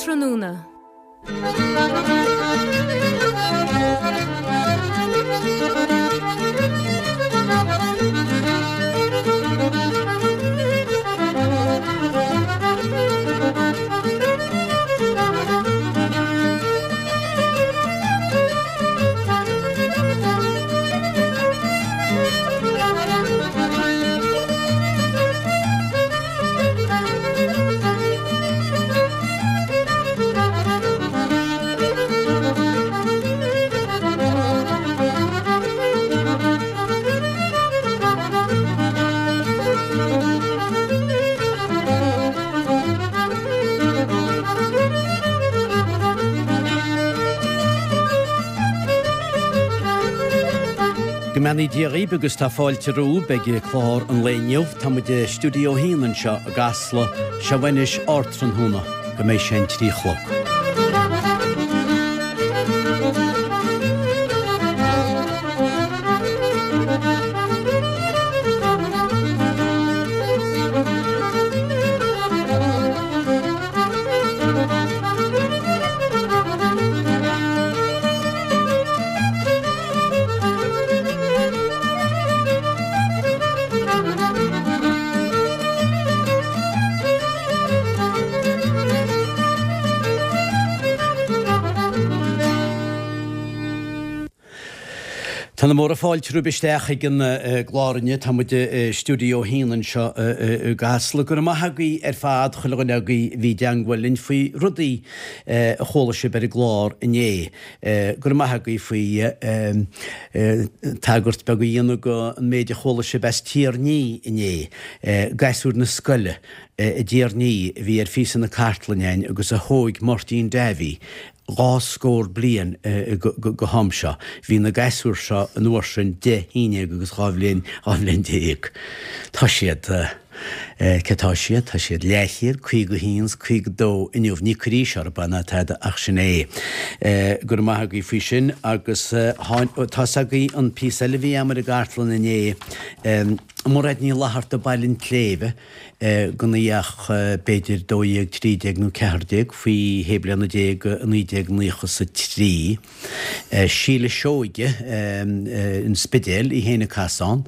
Ardtráthnóna. Go mbeannaí Dia dhaoibh agus tá fáilte romhaibh ag clár an lae inniu. Tá muid i Stiúideo 1 anseo i gCasla. Seo anois Ardtráthnóna go mbeidh sé an 3 a chlog. Tá na móra fáilte romhaibh isteach ag an gclár inniu. Tá muid i Stiúideo 1 anseo i gCasla. Go raibh maith agaibh ar fad, chuile dhuine agaibh a bhí i dteangmháil linn faoi rudaí a chuala sibh ar an gclár inné. Go raibh maith agaibh faoi tagairt beag a dhéanamh go an méid a chuala sibh as Tír an Fhia inné, gasúir na scoile i dTír an Fhia a bhí ar phíosa na cartlainne againn agus a thóig Máirtín Davy 2 scór bliain go ham seo. Bhí na gasúir seo an uair sin 10, 11 agus 12 bhliain, 12 bhliain. Tá siad, cé tá siad? Tá siad leathchéad, 51 's 52 inniu. Ní cur aois orthu ná tada ach sin é. Go raibh maith agaibh faoi sin agus tá's agaibh an píosa eile a bhí agam ar an gcartlann inné, Mairéad Ní Fhlatharta Baile an tSléibhe, gan í ach b'fhéidir 12, 13 nó 14 faoi shé bliana déag i 1993. Síle Seoige, an Spidéal, í féin ag casadh ann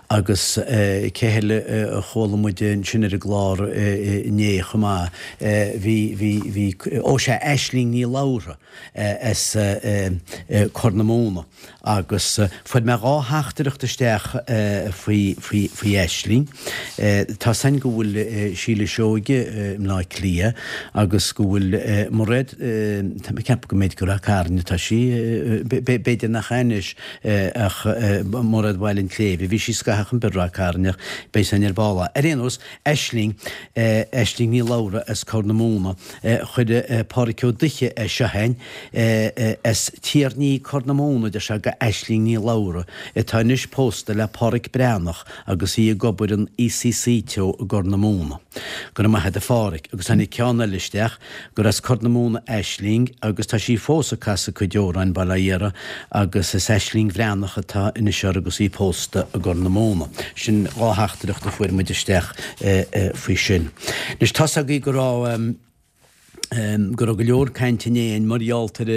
agus cé heile a chuala muid ansin ar an gclár inné chomh maith, bhí, bhí, bhí, ó sea, Aisling Ní Labhra as Corr na Móna. Agus fuair mé 2 theachtaireacht isteach faoi, faoi, faoi Aisling. Tá's againn go bhfuil Síle Seoige i mBleá Cliath agus go bhfuil Mairéad, tá mé ag ceapadh go mb'fhéidir gur Ráth Cairn atá sí, b'fhéidir nach ea anois ach Mairéad Bhaile an tSléibhe, bhí sí scaitheamh chun bheith Ráth Cairn ach beidh san ar ball. Ar aon nós, Aisling, Aisling Ní Labhra as Corr na Móna, chuir Pádraic Ó Dubhthaigh é seo chugainn, As Tír an Fhia Corr na Móna, deir sé, go Aisling Ní Labhra, atá anois pósta le Páraic Breathnach agus í ag obair in ECC Teo i gCorr na Móna. Go raibh maith a't a Pháraic. Agus tháinig ceann eile isteach, gur as Corr na Móna Aisling agus tá sí fós ag casadh a cuid amhráin, bail ó Dhia uirthi, agus is Aisling Bhreathnach atá anois uirthi agus í pósta i gCorr na Móna. Sin 2 theachtaireacht a fuair muid isteach faoi sin. Anois tá's agaibh go raibh. go raibh go leor cainte inné againn mar gheall ar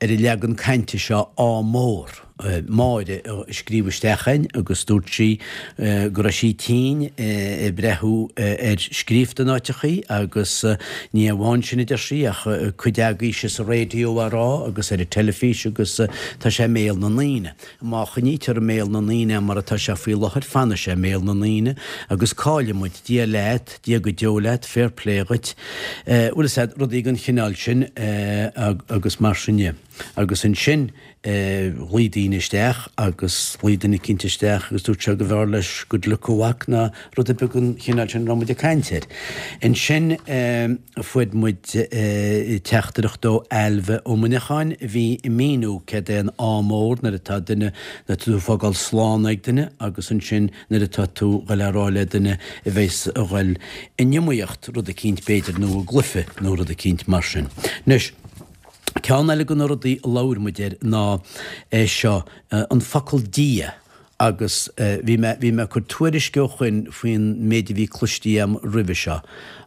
ar an leagan cainte seo ádh mór. Máire a scríobh isteach chugainn agus dúirt sí go raibh sí tinn ag breathú ar scríofa in áiteachaí agus ní amháin sin a deir sí ach cuid agaibhse sa raidió á rá agus ar an teilifís agus tá sé i mbéal na ndaoine. Má choinnítear i mbéal na ndaoine é mar atá sé faoi láthair fanfaidh sé i mbéal na ndaoine agus caillfidh muid, Dia leat, Dia go deo leat, fair play dhuit, bhfuil fhios a'd, rudaí den chineál sin agus mar sin de. Agus ansin ghlaoigh daoine isteach agus ghlaoigh duine eicínt isteach agus dúirt sé go mb'fhearr leis good luck a mhac ná rud ar bith den chineál sin a raibh muid ag caint air. Ansin fuair muid teachtaireacht ó Ailbhe Ó Muineacháin a bhí ag míniú céard é an ádh mór nuair atá duine, nuair atá tú ag fágáil slán ag duine agus ansin nuair atá tú dhul a rá le duine a bheas a dhul in iomaíocht rud eicínt b'fhéidir nó i gcluiche nó rud eicínt mar sin. Anois, ceann eile de na rudaí a labhair muid air ná é seo, an focal Dia agus bhí mé, bhí mé ag cur tuairisc ó shoin faoin méid a bhí cloistí a'm roimhe seo.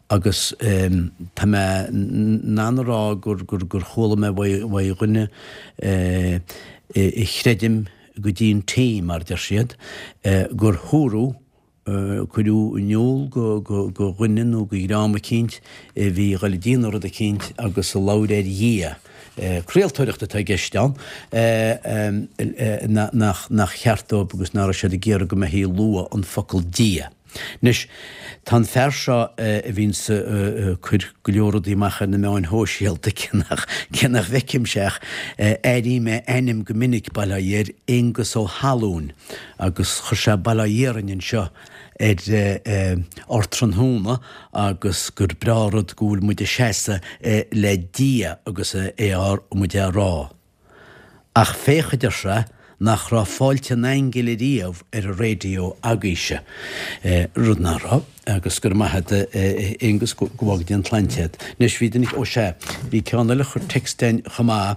Agus tá mé in ann a rá gur gur chuala mé uaidh dhuine a chreidim go dtí an T, mar a deir siad, gur húradh, cuireadh in iúl go dhuine nó go dhream eicínt a bhí ag dul a déanamh rud eicínt agus a labhair ar Dhia, craoltóireacht atá i gceist ann, nach cheart dóibh agus ná raibh siad ag iarraidh go mbeifí ag lua an focal Dia. Anois, tá an fear seo a bhíonns ag cur go leor rudaí amach ar na meáin shóisialta, cé nach, cé nach bhfeicimse ach airím a ainm go minic, bail ó Dhia air, Aengus Ó hAlúin, agus chuir sé bail ó Dhia orainn anseo ar Ardtráthnóna agus gur breá rud go bhfuil muid ag seasamh le Dia agus é á, muid á rá. Ach féach, a deir sé, nach raibh fáilte an aingil ariamh ar an raidió agaibhse. Rud nach raibh, agus go raibh maith agat, a Aonghus, go bhfága Dia an tsláinte agat. Anois, bhí duine, ó sea, bhí ceann eile a chuir text againn chomh maith,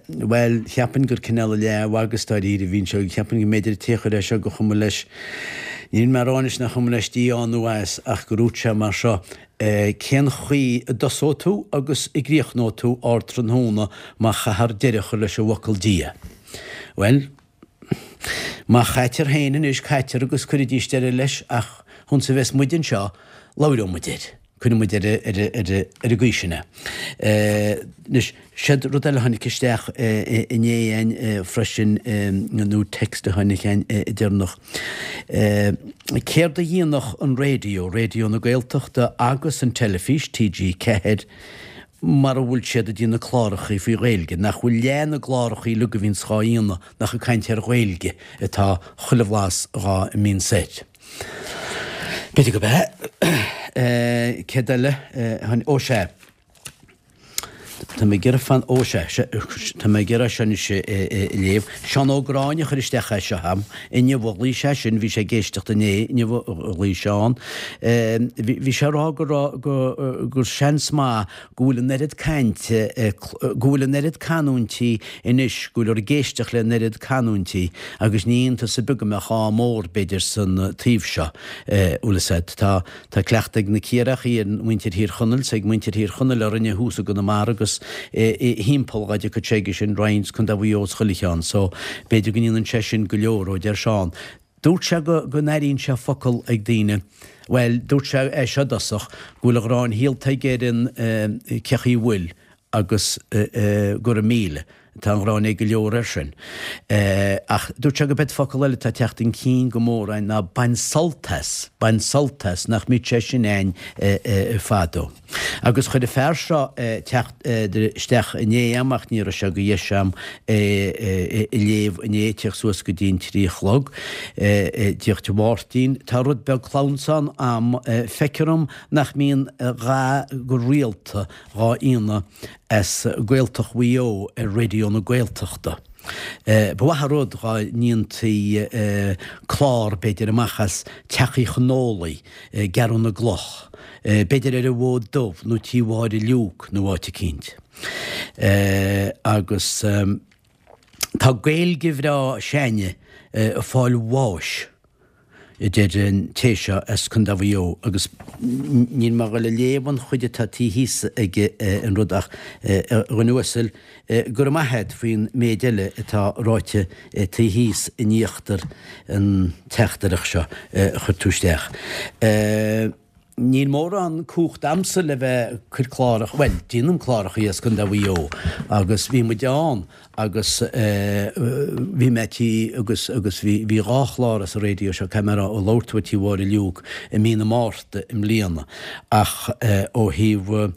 bhuel, cheapfainn gur cineál leathmhagadh is dáiríre a bhí anseo, cheapfainn go mb'fhéidir an té a chuir é seo gur chuma leis, níl mé a rá anois nach cuma leis Dia ann nó as, ach gur dhúirt sé mar seo, Cén chaoi a dtosóidh tú agus a gcríochnóidh tú Ardtráthnóna má chaithfear deireadh a chur leis an bhfocal Dia? Bhuel, má chaitear féin anois, caitear agus cuiridís deireadh leis ach ionns a bheas muid anseo, labhróidh muid air. Cuirfidh muid ar an gcaoi sin é. Anois, Séard rud eile a tháinig isteach inné a'inn freisin, nó text a tháinig a'inn deireanach. Céard a dhéanfadh an raidió, Raidió na Gaeltachta agus an teilifís, TG4, mara bhfuil siad ag déanamh clárachaí faoi Ghaeilge? Nach bhfuil leath na gclárachaí uilig a bhíonns dhá dhéanamh nach ag caint ar Ghaeilge atá chuile bhlas dhá mbíonns air? B'fhéidir go b'ea. Céard eile? Ó sea. Tá mé ag iarraidh fan, ó sea, tá mé ag iarraidh seo anois a léamh. Seán Ó Gráinne a chuir isteach é seo a'm. Inniu a ghlaoigh sé sin, bhí sé ag éisteacht inné, inniu a ghlaoigh Seán. Bhí sé ag rá go raibh, go, gur seans maith go bhfuil an oiread cainte, go bhfuil an oiread canúintí anois, go bhfuil ag éisteacht le an oiread canúintí agus ní iontas ar bith go mbeadh ádh mór b'fhéidir san taobh seo. Bhfuil fhios a'd, tá. Tá cleachtadh ag na Ciarraíochaí ar mhuintir Thír Chonaill 's ag muintir Thír Chonaill orainne thuas i gConamara agus thimpeall dhá dtiocfadh sé aige sin Rhines, Contae Mhaigh Eo 's chuile cheann so b'fhéidir go ndéanann sé sin go leor, a deir Seán. Dúirt sé go go n-airíonn sé focal ag daoine, bhuel, dúirt sé é seo i dtosach, go bhfuil a ghráin shaolta aige ar an cé chaoi a bhfuil agus go raibh míle. Tá an ghráin ag go leor air sin. Ach dúirt sé go b'ead focal eile atá ag teacht chun cinn go mór a'inn ná bain sult as, bain sult as, nach mbíodh sé sin a'inn fadó. Agus chuir an fear seo teacht isteach inné a'm ach ní raibh sé de dheis a'm é a léamh inné, téadh suas go dtí an 3 a chlog. Díocht a Mháirtín, tá rud beag clamhsán a'm, feictear dhom nach mbíonn a dhath go rialta dhá dhéanamh as Gaeltacht Mhaigh Eo ar Raidió na Gaeltachta. Ba mhaith an rud dhá ndéantaí clár, b'fhéidir, amach as Teach Uí Chonólaigh i gCeathrú na gCloch, b'fhéidir ar an bhFód Dubh nó Tí Mháire Liúc nó áit eicínt. Agus tá Gaeilge bhreá s'a'inne ag fáil bháis. a deir an té seo as Contae Mhaigh Eo, agus níl mé a dhul a léamh an chuid atá taobh thíos ag an rud ach, a dhuine uasail, go raibh maith a't faoin méid eile atá ráite taobh thíos in íochtar an teachtaireacht seo a chuir tú isteach. Níl mórán cumhachta a'msa le bheith ag cur clárach, bhuel, déanaim clárachaí as Contae Mhaigh Eo agus bhí muid ann agus bhí mé tí agus agus bhí bhí dhá chlár as an raidió seo, caithfidh mé a rá, ó labhair tú ar Tí Mháire Liúc i mí na Márta i mbliana ach ó thaobh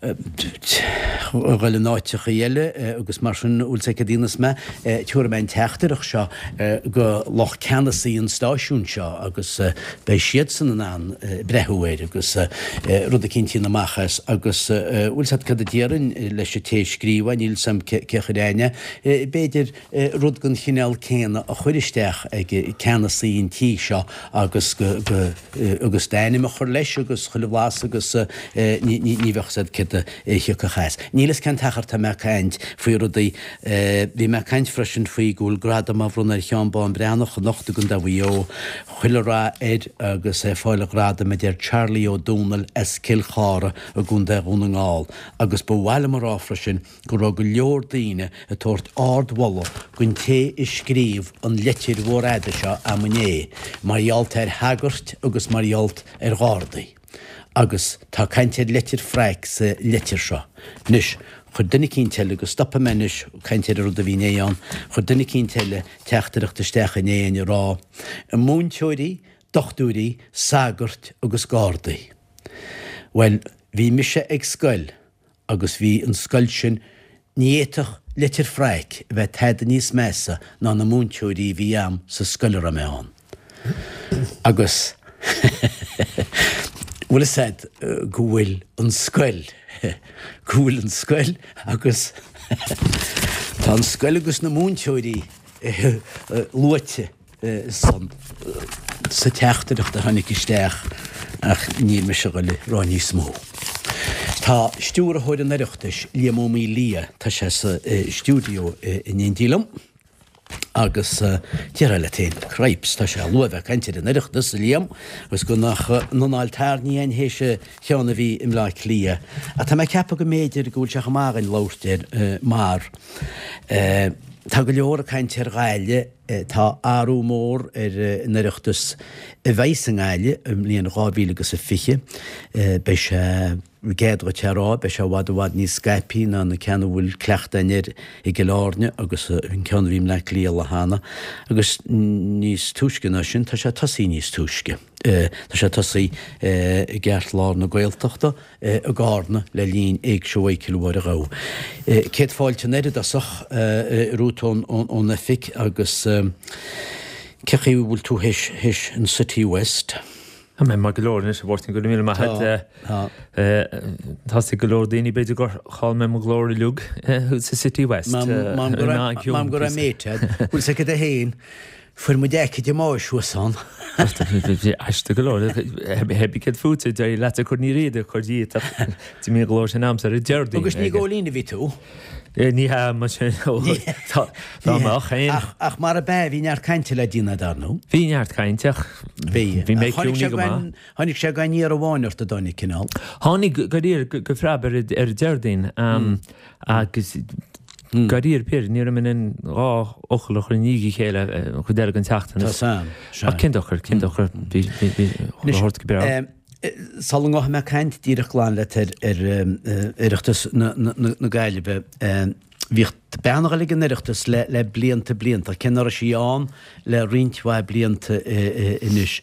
dhul in áiteachaí eile agus mar sin, bhfuil 's agat cad a dhéanfas mé, tabharfaidh mé an teachtaireacht seo go lucht ceannasaí an stáisiúin seo agus beidh siadsan in ann breathnú air agus rud eicínt a dhéanamh amach as agus bhfuil 's agat cad a déarfainn leis an té a scríobh é, níl 's a'm cé a chuir a'inn é, b'fhéidir rud den chineál céanna a chur isteach ag ceannasaí an tí seo agus go, go, agus d'ainm a chur leis agus chuile bhlas agus ní, ní, ní bheadh 's agat céard. céard a thiocfadh as. Níl fhios cén t-achar tá mé ag caint faoi rudaí. Bhí mé ag caint freisin faoi go bhfuil gradam á bhronnadh ar Sheán Bán Breathnach anocht i gContae Mhaigh Eo. Chuile rath air agus é ag fáil a ghradaim a deir Charlie Ó Dónaill as Cill Chartha i gContae Dhún na nGall. Agus ba mhaith liom a rá freisin go raibh go leor daoine ag tabhairt ardmholadh don té a scríobh an leitir mhór fhada seo a'm inné mar gheall ar shagairt agus mar gheall ar Ghardaí. Agus tá caint ar leitir fraoch sa leitir seo. Anois, chuir duine eicínt eile, agus stopfaidh mé anois caint ar an rud a bhí inné ann, chuir duine eicínt eile teachtaireacht isteach inné ag rá, Múinteoirí, dochtúirí, sagairt agus Gardaí. Bhuel, bhí mise ag scoil agus bhí an scoil sin, ní fhéadfadh leitir fraoch a bheith tada níos measa ná na múinteoirí a bhí a'm sa scoil a raibh mé ann. Agus bhfuil fhios a'd go bhfuil an scoil, go bhfuil an scoil agus tá an scoil agus na múinteoirí luaite. san sa teachtaireacht a tháinig isteach ach níl mise a ghoil ag rá níos mó. Tá Stiúrthóir an Oireachtais, Liam Ó Maolaodha, tá sé sa stiúideo in éindí liom agus déarfá leat féin, cripes, tá sé luath a bheith ag caint ar an Oireachtas, a Liam, agus go nach an anáil tairní againn théis an cheann a bhí i mBleá Cliath. Ach tá mé ag ceapadh go mb'fhéidir go bhfuil sé chomh maith againn labhairt air mar tá go leor ag caint ar Ghaillimh, Tá athrú mór ar an Oireachtas a bheidh i nGaillimh i mbliain 2020. Beidh sé, cead dhuit a rá, beidh sé i bhfad i bhfad níos scaipthe ná na ceann a bhfuil cleachtadh againn air i gCill Airne agus an ceann a bhí i mBleá Cliath lá cheana. Agus níos túisce ná sin, tá sé tosaithe níos túisce. Tá sé tosaithe i gceartlár na Gaeltachta. i gCarna le linn Éigse Mhichíl Mháire Ghabha. Céad fáilte anoir i dtosach romhat ón oifig agus cé chaoi a bhfuil tú théis an City West? Tá mé maith go leor anois, a Mháirtín, go raibh míle maith agat. Tá 'fhios ag go leor daoine b'fhéidir gur chaill mé mo ghlór uilig sa City West. M'am go raibh méit agat. Bhfuil 'fhios agat é féin? Fuair muid aicíd an bháis thuas ann. Aisteach go leor. Pé céard fút, d'éirigh leatsa Corn Uí Riada a chur díot ach d'imigh an glór sin a'msa ar an Déardaoin. Agus ní ag ól fhíona a bhí tú. Ní hea, mar sin, dá mbeadh féin. Ach mar ab ea, bhí neart cainte le déanamh dar ndóigh. Bhí neart cainte ach bhí mé ciúin go maith. Tháinig sé gan iarraidh amháin ort, a dtáinig, cineál? Tháinig, dáiríre, go phreab ar an Déardaoin agus dáiríre píre, ní raibh mé in ann dá fhocal a chur i ndiaidh a chéile an chuid eile den tseachtain. Tá sam, sea. Ach cén dochar, cén dochar, bhí chuile shórt go breá. Sula ngabhfaidh mé ag caint díreach glan leat ar Oireachtas na Gaillimhe, Bhíodh bean a ghoil ag an Oireachtas le blianta blianta, cé nach raibh sí ann le roinnt mhaith blianta anois.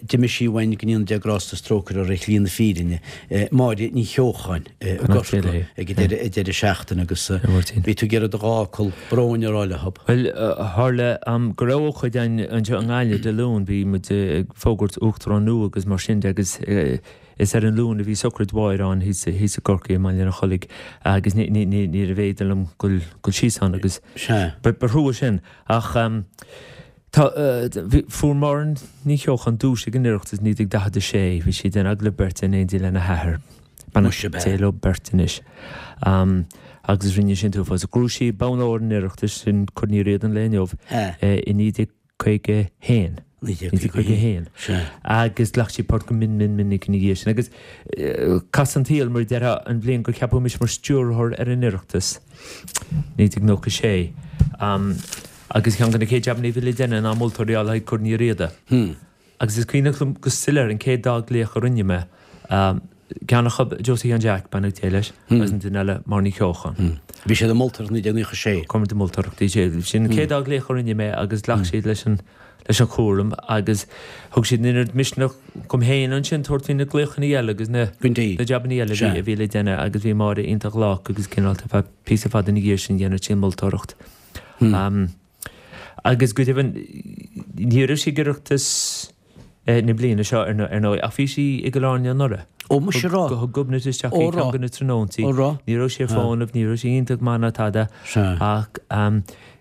D'imigh sí uainn, go ndéana Dia grásta is trócaire uirthi, ar shlí na fírinne, Máire Ní Cheocháin i gCorcaigh ag an deireadh seachtaine agus bhí tú ag iarraidh do dhá fhocal bróin a rá leob. Bhuel, tharla go raibh ócáid anseo i nGaillimh Dé Luain, bhí muid ag fógairt Uachtarán nua agus mar sin de agus Is ar an Luan a bhí socraid Mháire ann thíos i gCorcaigh i mBaile an Chollaigh agus níorbh fhéidir liom dul síos ann agus ba thrua sin. Ach tá, fuair Máire Ní Cheocháin duais ag an Oireachtas 1946, bhí sí ag déanamh agallamh beirte in éindí lena hathair, beannacht Dé leo beirt anois. Agus rinne sí an t-uafás. Ghnóthaigh sí bonn óir an Oireachtais, sin Corn Uí Riada an lae inniu, i 1951. 1951. Agus ghlac sí páirt go mion mion minic ina dhiaidh sin. Agus casadh an tsaoil, mar a déarfá, an bhliain gur ceapadh mise mar stiúrthóir ar an Oireachtas, 1996. Agus ceann de na chéad jabannaí a bhí le déanamh ná moltóirí a fháil le haghaidh Corn Uí Riada. Agus is cuimhneach liom go soiléir an chéad dá glaoch a rinne mé, ceann acu Josie Sheáin Jeaic, beannacht Dé leis, agus an duine eile Máire Ní Cheocháin. Bhí siad ag moltóireacht 1996. Chuir muid ag moltóireacht í. Sin an chéad dá glaoch a rinne mé agus ghlac siad leis an leis an chúram agus thug siad an oiread misneach dhom féin ansin tabhairt faoi na glaochanna eile agus na na jabannaí eile a bhí le déanamh agus bhí Máire iontach lách agus cineálta ar feadh píosa fada ina dhiaidh sin dhéanadh sí an moltóireacht. Agus go deimhin, ní raibh sí ag Oireachtas na bliana seo, ar ndóigh, ach bhí sí i gCill Airne anuraidh. Ó, muise raibh. Thug Gobnait isteach í ceann de na tráthnóntaí. Ó, raibh. Ní raibh sí ar fónamh, ní raibh sí iontach maith ná tada, ach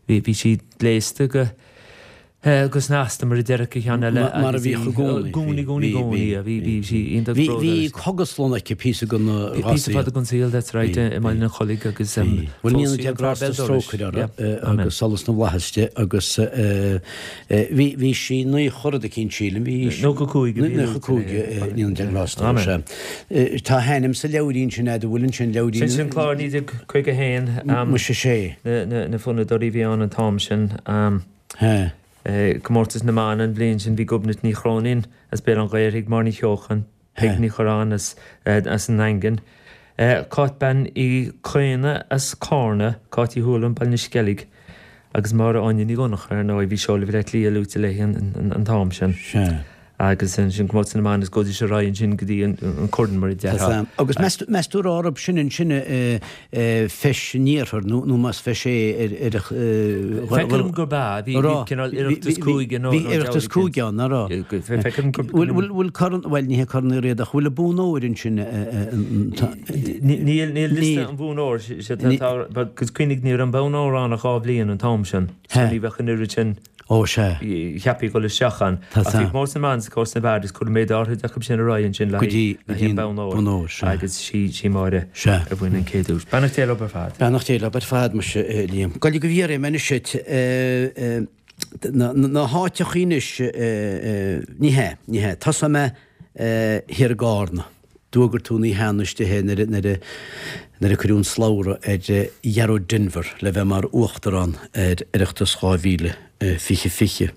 bhí sí gléasta go. Go snasta, mar a déarfadh an ceann eile. Mar a bhíodh i gcónaí. Gcónaí, gcónaí, gcónaí. Bhí, bhí sí iontach bródúil. Bhí cógaslann aici píosa den saol. Píosa fada den saol, that's right, i mBaile an Chollaigh agus Bhí. Bhuel, go ndéana Dia grásta is trócaire uirthi agus solas na bhflaitheas di agus bhí, bhí sí naoi churad eicínt sílim, bhí. 95 a bhí. 95, go ndéana Dia grásta uirthi, sea. Tá a hainm sa leabhairín sin a'd, an bhfuil ansin, leabhairín. Sin sin clár 1951. Muise sé. Na fonnadóirí a bhí ann an t-am sin. He. Comórtas na mBan an bhliain sin bhí Gobnait Ní Chróinín as Béal an Ghaorthaidh, Máire Ní Cheocháin, Peig Ní Churráin as an nDaingean, Cáit Bean Uí Chaonaigh as Cárna, Cáit Uí Shúilleabháin, Baile na Sceilg agus Máire Áine Ní Dhonncha ar ndóigh bhí Seolamh Bhaile Átha Cliath luaite léi an t-am sin. Sea. Agus ansin Comórtas na mBan is gabhaidís ar aghaidh ansin go dtí an corn mar a déarfá. Agus meas tú arb sin ansin Feis an Iarthair nó más feis é ar a. Feictear dom gurb ea. Bhí cineál Oireachtas Cúige nó. Bhí Oireachtas Cúige ann, ná raibh? Feictear dom gurb. Bhfuil corn, bhuel ní hé Corn Uí Riada ach bhfuil an bonn óir ansin? Níl liosta an bhonn óir, agus cuimhnigh ní raibh an bonn óir ann ach 2 bhliain an t-am sin, so ní bheadh an oiread sin. Ó, sea. Cheapfaí dhul isteach ann. Tá, Ach tá. bhí Comórtas na mBan is Comórtas na bhFear agus cuireadh méid áirithe acu sin ar aghaidh ansin le Go dtí, haghaidh, le haghaidh an bonn óir. bonn óir, sea. Agus sí, sí Máire Sea. a bhain an chéad duais. Beannacht Dé leo ar fad. Beannacht Dé leo ar fad, muise, a Liam. Gabh go bhfiafraí anois duit, eh, na, na háiteachaí anois, eh, eh, ní hea, ní hea. Tosóidh mé, eh, thiar i gCarna. D'fhuagair tú an oíche cheana istigh é nuair a nuair a cuireadh an slabhra ar Ghearóid Denvir le bheith mar Uachtarán ar Oireachtas 2020 20.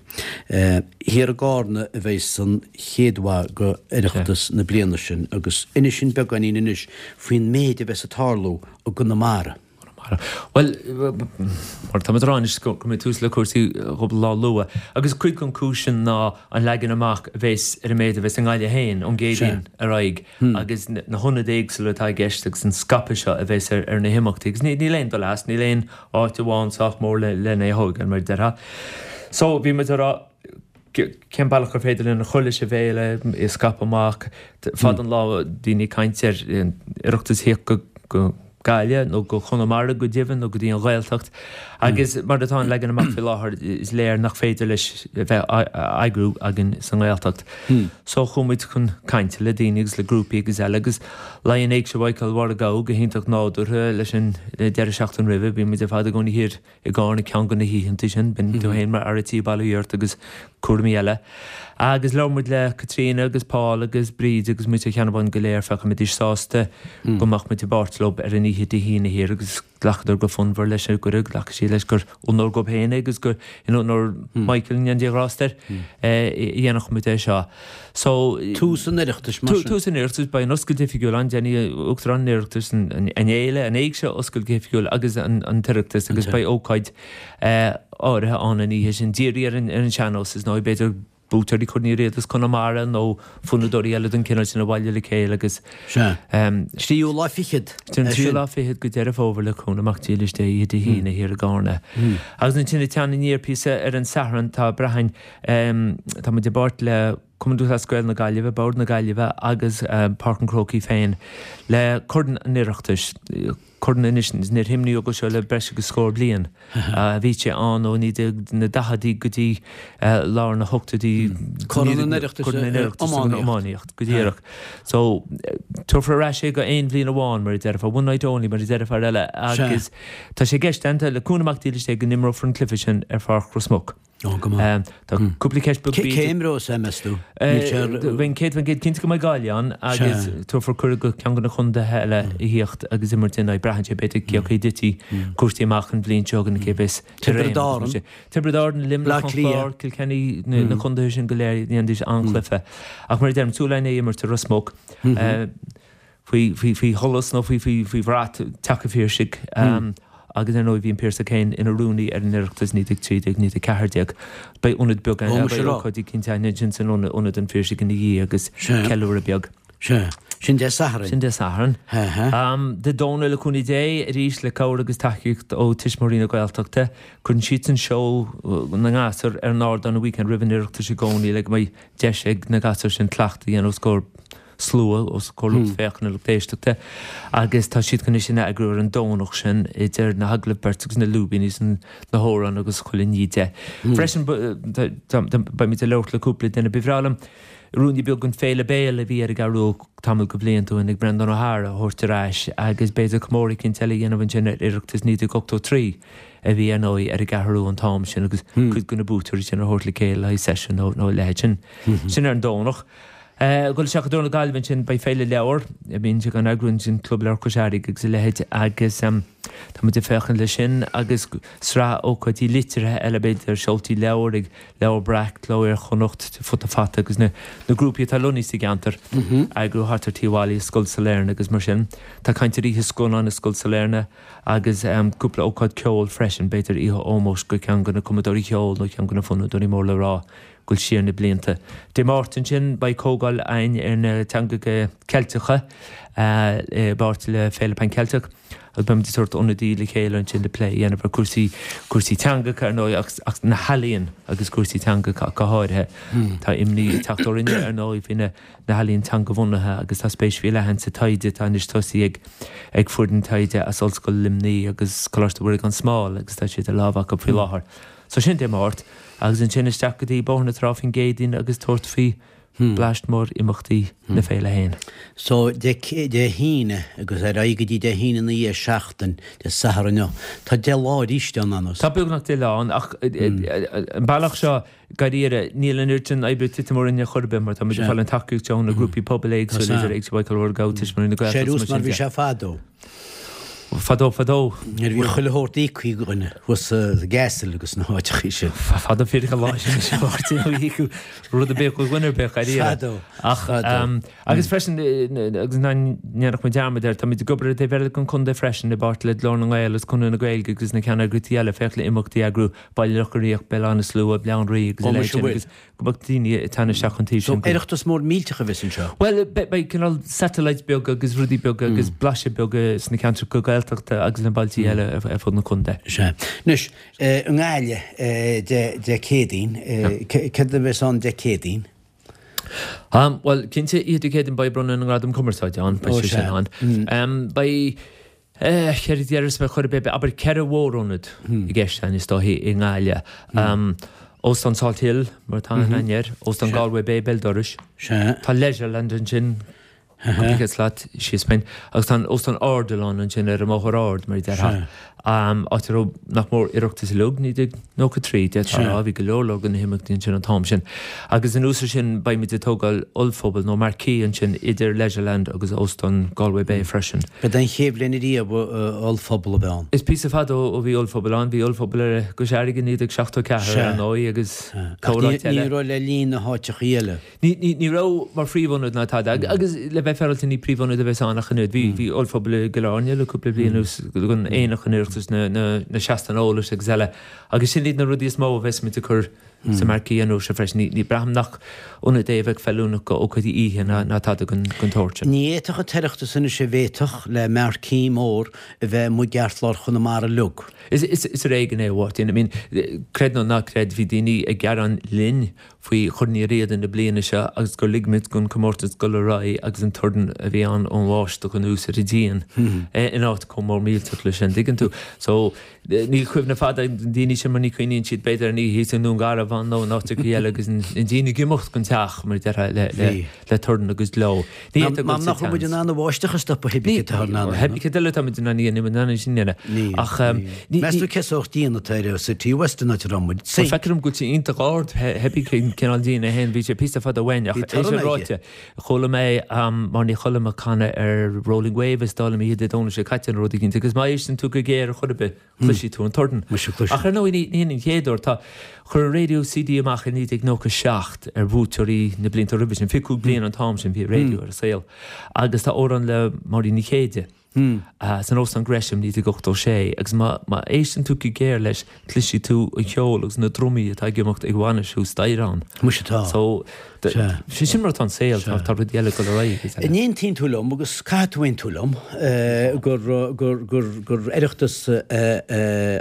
Thiar i gCarna a bheidh an chéad mhaith go Oireachtas na bliana sin agus inis dúinn beagáinín anois faoin méid a bheas ag tarlú i gConamara. Bhuel, mar tá muid ag rá anois go mbeidh tús le cúrsaí cúpla lá luath, agus cuid den chúis sin ná an leagan amach a bheas ar an méid a bheas i nGaillimh féin ón gCéadaoin ar aghaidh agus na hionaid éagsúla atá i gceist agus an scaipeadh seo a bheas ar na himeachtaí. Agus níl aon dul as, níl aon áit amháin sách mór len é a thógáil, mar a déarfá. So, bhí muid ag rá, Cén bealach gur féidir linn a chur leis an bhféile, é a scaipeadh amach? Fada an lá daoine ag caint ar Oireachtas a thíocht go Gaillimh nó go Conamara go deimhin nó go dtí an Ghaeltacht agus mar atá an leagan amach faoi láthair is léir nach féidir leis a bheith á eagrú againn sa nGaeltacht. So chuaigh muid chun cainte le daoine agus le grúpaí agus eile agus luigh an Éigse Mhichael Mháire Ghabha go hiontach nádúrtha leis an deireadh seachtaine roimhe. Bíonn muid ar fad i gcónaí thiar i gCarna ceann de na hoícheanta sin, bíonn tú féin mar fhear a' tí ag bailiú ort agus cúraimí eile. Agus labhair muid le Caitríona agus Paul agus Bríd agus muintir Cheannabháin go léir, féach an mbeidís sásta go mbeadh muid i bpáirt leo ar an oíche Dé hAoine thiar agus ghlacadar go fonnmhar leis an gcuireadh, ghlac siad leis gur onóir dóibh féin é agus gur in onóir Michael, go ndéana Dia grásta air, a dhéanfadh muid é seo. So. Tús an Oireachtais, mar sin. Tús an Oireachtais, beidh an oscailt oifigiúil ann, déanfaidh Uachtarán an Oireachtais an fhéile, an éigse a oscailt go hoifigiúil agus an tOireachtas agus beidh ócáid áirithe ann an oíche sin, dírithe ar an sean-nós is ndóigh, b'fhéidir buaiteoirí Chorn Uí Riada as Conamara nó fonnadóirí eile den chineál sin a bhailiú le chéile agus. Sea. Tríú lá fichead. An tríú lá fichead de Dheireadh Fómhair le cúnamh amach dílis Dé, oíche Dé hAoine thiar i gCarna. Agus ansin ag teannadh aniar píosa ar an Satharn tá braitheann Tá muid i bpáirt le Cumann Lúthchleas Gael na Gaillimhe, Bord na Gaillimhe agus Páirc an Chrócaigh féin le Corn an Oireachtais, corn anois nár imríodh go seo le breis agus scór bliain. Bhí sé ann ó 1940idí go dtí lár na hochtóidí. Corn an Oireachtais Corn an Oireachtais san iománaíocht go díreach. So tabharfar ar ais é go aon bhliain amháin mar a déarfá, one night only mar a déarfá eile agus tá sé i gceist le cúnamh amach dílis Dé go n-imreofar an cluiche sin ar Pháirc Ros Muc. Ó, go maith. Tá cúpla ceist beag Cé a imreos é, meas tú? Níl sé ar. Bheinn 100% cinnte go mbeidh Gaillimh ann agus tabharfar cuireadh do cheann de na contaetha eile a thíocht agus imirt ina aghaidh. Braitheann sé, b'fhéidir, cé acu a dtitfidh cúrsaí amach an bhliain seo chugainn, cé a bheas i réim. Tiobraid Árann. Tiobraid Árann, Luimneach, An Clár, Kilkenny, na contaetha sin go léir, dhéanfaidís an-chluiche. Ach mar a deirim, súil againn é a imirt i Ros Muc. faoi sholas nó faoi bhrat Teach an Phiarsaigh agus ar ndóigh bhí an Piarsach féin ina rúnaí ar an Oireachtas 1913, 1914. Beidh ionad beag ann, beidh ócáid eicínt againn ansin san Ionad an Phiarsaigh ina dhiaidh agus ceiliúradh beag. Sea. Sin Dé Sathairn. Sin Dé Sathairn. Dé Domhnaigh le cúnamh Dé arís le cabhair agus tacaíocht ó Tuismitheoirí na Gaeltachta. Cuireann siadsan seó na ngasúr ar an ardán an weekend roimh an Oireachtas i gcónaí le go mbeidh deis ag na gasúir sin cleachtadh a dhéanamh os comhair. slua, os comhair lucht féachana, lucht éisteachta agus tá siad chun é sin a eagrú ar an Domhnach sin idir na hagallaimh beirt agus na lúibíní is na hamhráin agus chuile ní de. Freisin beimid ag labhairt le cúpla duine. Ba bhreá liom ruainne beag den Féile Béil a bhí ar an gCeathrú Rua tamall de bhlianta ó shin ag Breandán Ó hEára a thabhairt ar ais agus b'fhéidir comóradh eicínt eile a dhéanamh ansin ar Oireachtas 1983 a bhí ar ndóigh ar an gCeathrú Rua an t-am sin agus cuid de na buaiteoirí sin a thabhairt le chéile le haghaidh seisiún nó a leithéid sin. Sin ar an Domhnach. Ag dul isteach i dtreo na Gaillimhe ansin beidh Féile Leabhar, a bhíonn siad á eagrú ansin, Club Leabhar Chois Fharraige agus a leithéid agus tá muid ag féachaint leis sin agus sraith ócáidí liteartha eile b'fhéidir, seoltaí leabhar ag Leabhar Breac, Cló Iar-Chonnacht, Futa Fata agus na grúpaí atá lonnaithe sa gceantar, eagrú thart ar Tí Mholly, Scoil Sailearna agus mar sin. Tá caint ar oíche scannán i Scoil Sailearna agus cúpla ócáid ceoil freisin, b'fhéidir oíche ómóis go ceann de na cumadóirí cheoil nó ceann de na fonnadóirí mór le rá. dul siar na blianta. Dé Máirt ansin beidh comhdháil againn ar na teangacha Ceilteacha i bpáirt le Féile Pan Ceilteach agus beimid ag tabhairt ionadaí le chéile ansin le plé a dhéanamh ar cúrsaí cúrsaí teangacha ar ndóigh ach ach na healaíon agus cúrsaí teangacha ach go háirithe. Tá imní ag teacht orainne ar ndóigh faoi na na healaíon teangabhunaithe agus tá spéis faoi leith sa taighde atá anois tosaithe ag ag foireann taighde as Ollscoil Luimnigh agus Coláiste Mhuire gan Smál agus tá siad ar lámh acu faoi láthair. So sin Dé Máirt, agus ansin isteach go dtí Bóthar na Trá faoin gCéadaoin agus tabhairt faoi bleaist mór imeachtaí na féile fhéin. So Dé hAoine agus ar aghaidh go dtí Dé hAoine ina dhiaidh seachtain, Dé Sathairn inniu. Tá 10 lá arís ann anuas. Tá beagnach 10 lá ann ach an bealach seo, dáiríre, níl an oiread sin oibre ag titim orainn ar chor ar bith mar tá muid ag fáil an tacaíocht seo ó na grúpaí pobail éagsúla idir Éigse Mhichael Mhuire Gabha, Tuismitheoirí na Gaeltachta is mar sin de. Sé mar bhí sé fadó. Fadó fadó. Nuair a bhí chuile shórt íoctha ag dhuine thuas sa gCastle agus sna háiteachaí sin. Fada fíorach an lá sin anois a Mháirtín ó íocadh rud ar bith do dhuine ar bith dáiríre. Fadó. Ach agus freisin agus ná ndéanfadh muid dearmad air, táimid ag obair ar an taobh eile den chontae freisin i bpáirt le Glór na nGael agus Conradh na Gaeilge agus na ceanneagraíochtaí eile féach le imeachtaí a eagrú, Baile Locha Riach, Béal Átha na Slua, Baile Átha an Rí agus a leithéid sin agus go mbeadh daoine ag teannadh isteach an taobh sin. So, Oireachtas mór millteach a bheas anseo. Bhuel, beidh cineál satellites beaga agus rudaí beaga agus blaiseadh beaga sna ceantracha Gaeltachta agus na bailtí eile ar fud na contae. Sea. Anois, i nGaillimh Dé Céadaoin, céard a bheas ann Dé Céadaoin? Bhuel, cinnte, oíche Dé Céadaoin beidh bronnadh na nGradam Cumarsáide ann, beidh sé sin ann. Beidh. Céard a déarfas mé chor ar bith, abair 4 mhórionad i gceist againn is dóichí i nGaillimh. Óstán Salt Hill, mar atá aithne againn air, Óstán Galway Bay béal dorais. Tá Leisureland ansin, cúpla céad slat síos uainn, agus tá an Óstán Ardilaun ansin ar an mBóthar Ard, mar a déarfá. Áit a raibh nach mór Oireachtas uilig, 1993, d'fhéadfá a rá, bhí go leor leor de na himeachtaí ansin an t-am sin. Agus anuas air sin, beimid ag tógáil ollphuball nó marquee ansin idir Leisureland agus Óstán Galway Bay freisin. B'é an chéad bhliain ariamh ollphuball a bheith ann. Is píosa fada ó bhí ollphuball ann. Bhí ollphuball ar an gCois Fharraige i 1974, ar ndóigh, agus corráit eile. Ní raibh le linn na háiteachaí eile. Ní raibh mar phríomhionad ná tada. Agus le bheith féaráilte ní príomhionad a bheas ann ach an oiread. Bhí ollphuball i gCill Airne le cúpla bliain anuas don Aonach an Oireachtais, na seastáin eolais agus eile. Agus sin iad na rudaí is mó a bheas muid ag cur sa marquee an uair seo freisin. Ní braithim nach ionad é a bheadh feiliúnach go ócáidí oíche ná tada den tsórt sin. Ní fhéadfadh an tOireachtas anois a bhféadfadh le marquee mór a bheith amuigh i gceartlár Chonamara uilig. Is ar éigean é, a Mháirtín. I mean, creid nó ná creid, bhí daoine ag gearán linn faoi Chorn Uí Riada na bliana seo agus gur lig muid don chomórtas dul ar aghaidh agus an torann a bhí ann ón bháisteach anuas ar an díon in áit chomh mór millteach leis sin, dtuigeann tú. So, níl cuimhne fada ag na daoine sin mar ní chuimhníonn siad b'fhéidir ar an oíche thíos i nDún Garbhán nó in áiteacha eile agus na daoine ag imeacht den teach mar a déarfá le torann agus gleo. Ní fhéadfadh go Mar nach raibh muid in ann an bháisteach a stopadh thibí cad atá in ann. Thibí cad eile atá muid in ann a dhéanamh, in ann sin a dhéanamh. Ach ní. Meas tú cé sórt díon atá ar City West an áit a raibh muid? Bhuel feictear dom go bhfuil sé iontach ard, thibí cén cineál díon é féin, bhí sé píosa fada uainn ach é sin ráite, chuala mé Máire Ní Choilm ag canadh ar Rolling Wave is dóigh liom oíche Dé Domhnaigh seo caite nó rud eicínt agus má éisteann tú go géar ar chor ar bith, Cloisfidh tú an torann. Ach ar ndóigh ní hin an chéad uair. Tá, chuir an raidió CD amach i 1997 ar bhuaiteoirí na blianta roimhe sin, 25 bliain an t-am sin bhí an raidió ar an saol. Agus tá amhrán le Máirín Ní Chéide san Óstán Gresham 1986 agus má má éisteann tú go géar leis cloisfidh tú an ceol agus na drumaí atá ag imeacht ag bainis thuas staighre ann. Muise tá. So. Sin mar atá an saol, tá rudaí eile ag dul ar aghaidh agus eile. An aontaíonn tú liom, agus caithfidh tú aontú liom, gur, gur, gur, gur Oireachtas,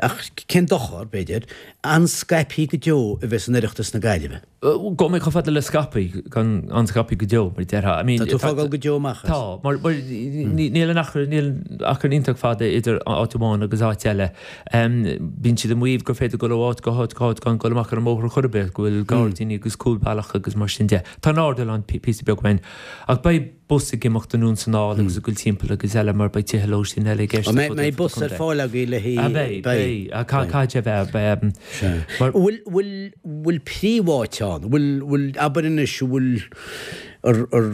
ach cén dochar, b'fhéidir, an-scaipthe go deo a bheas in Oireachtas na Gaillimhe? Gabhfaidh mé chomh fada le scaipthe, gan an-scaipthe go deo, mar a déarfá. I mean, Tá tú ag fágáil go deo amach as. Tá, mar, mar níl an achar, níl achar iontach fada idir áit amháin agus áit eile. Bíonn siad ag maíomh gur féidir dul ó áit go háit go háit gan dul amach ar an mbóthar ar chor ar bith, go bhfuil gairdíní agus cúlbealach agus mar sin de. Tá an Ardoileán píosa beag uainn. Ach beidh bus ag imeacht anonn is anall agus ag dul timpeall agus eile mar beidh tithe lóistín eile i gceist ar fud an bus ar fáil agaibh le haghaidh. Beidh, beidh. Caithfidh sé bheith, beidh. Bhfuil, bhfuil, bhfuil príomháit ann? Bhfuil, bhfuil, abair anois, bhfuil, ar, ar,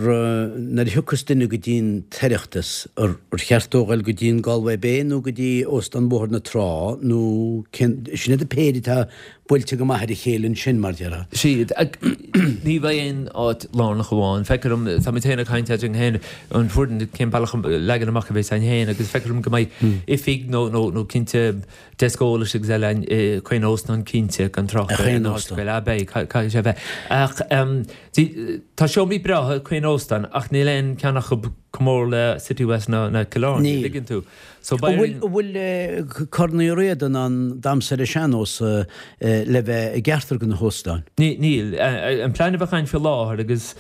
nuair a thiocfas duine go dtí an tOireachtas, ar, ar cheart dó dhul go dtí an Galway Bay nó go dtí Óstán Bhóthar na Trá nó cén, sin iad an péire atá buailte go maith ar a chéile ansin, mar déarfá. Sea, ní bheidh aon áit lárnach amháin. Feictear dom, tá muid féin ag caint eadrainn féin, an foireann, cén bealach leagan amach a bheas againn féin agus feictear dom go mbeidh oifig nó, nó, nó cinnte deasc eolais agus eile againn i chaon óstán cinnte, gan trácht ar na háiteacha eile. Beidh, caithfidh sé a bheith. Ach tá seomraí breátha i chaon óstán ach níl aon cheann acu chomh mór le Citywest ná ná Cill Airne, an dtuigeann tú. So beidh orainn. An bhfuil Corn Uí Riada in ann damhsa ar an sean-nós le bheith i gceachtar de na hóstáin? Níl. An plean a bheadh againn faoi láthair agus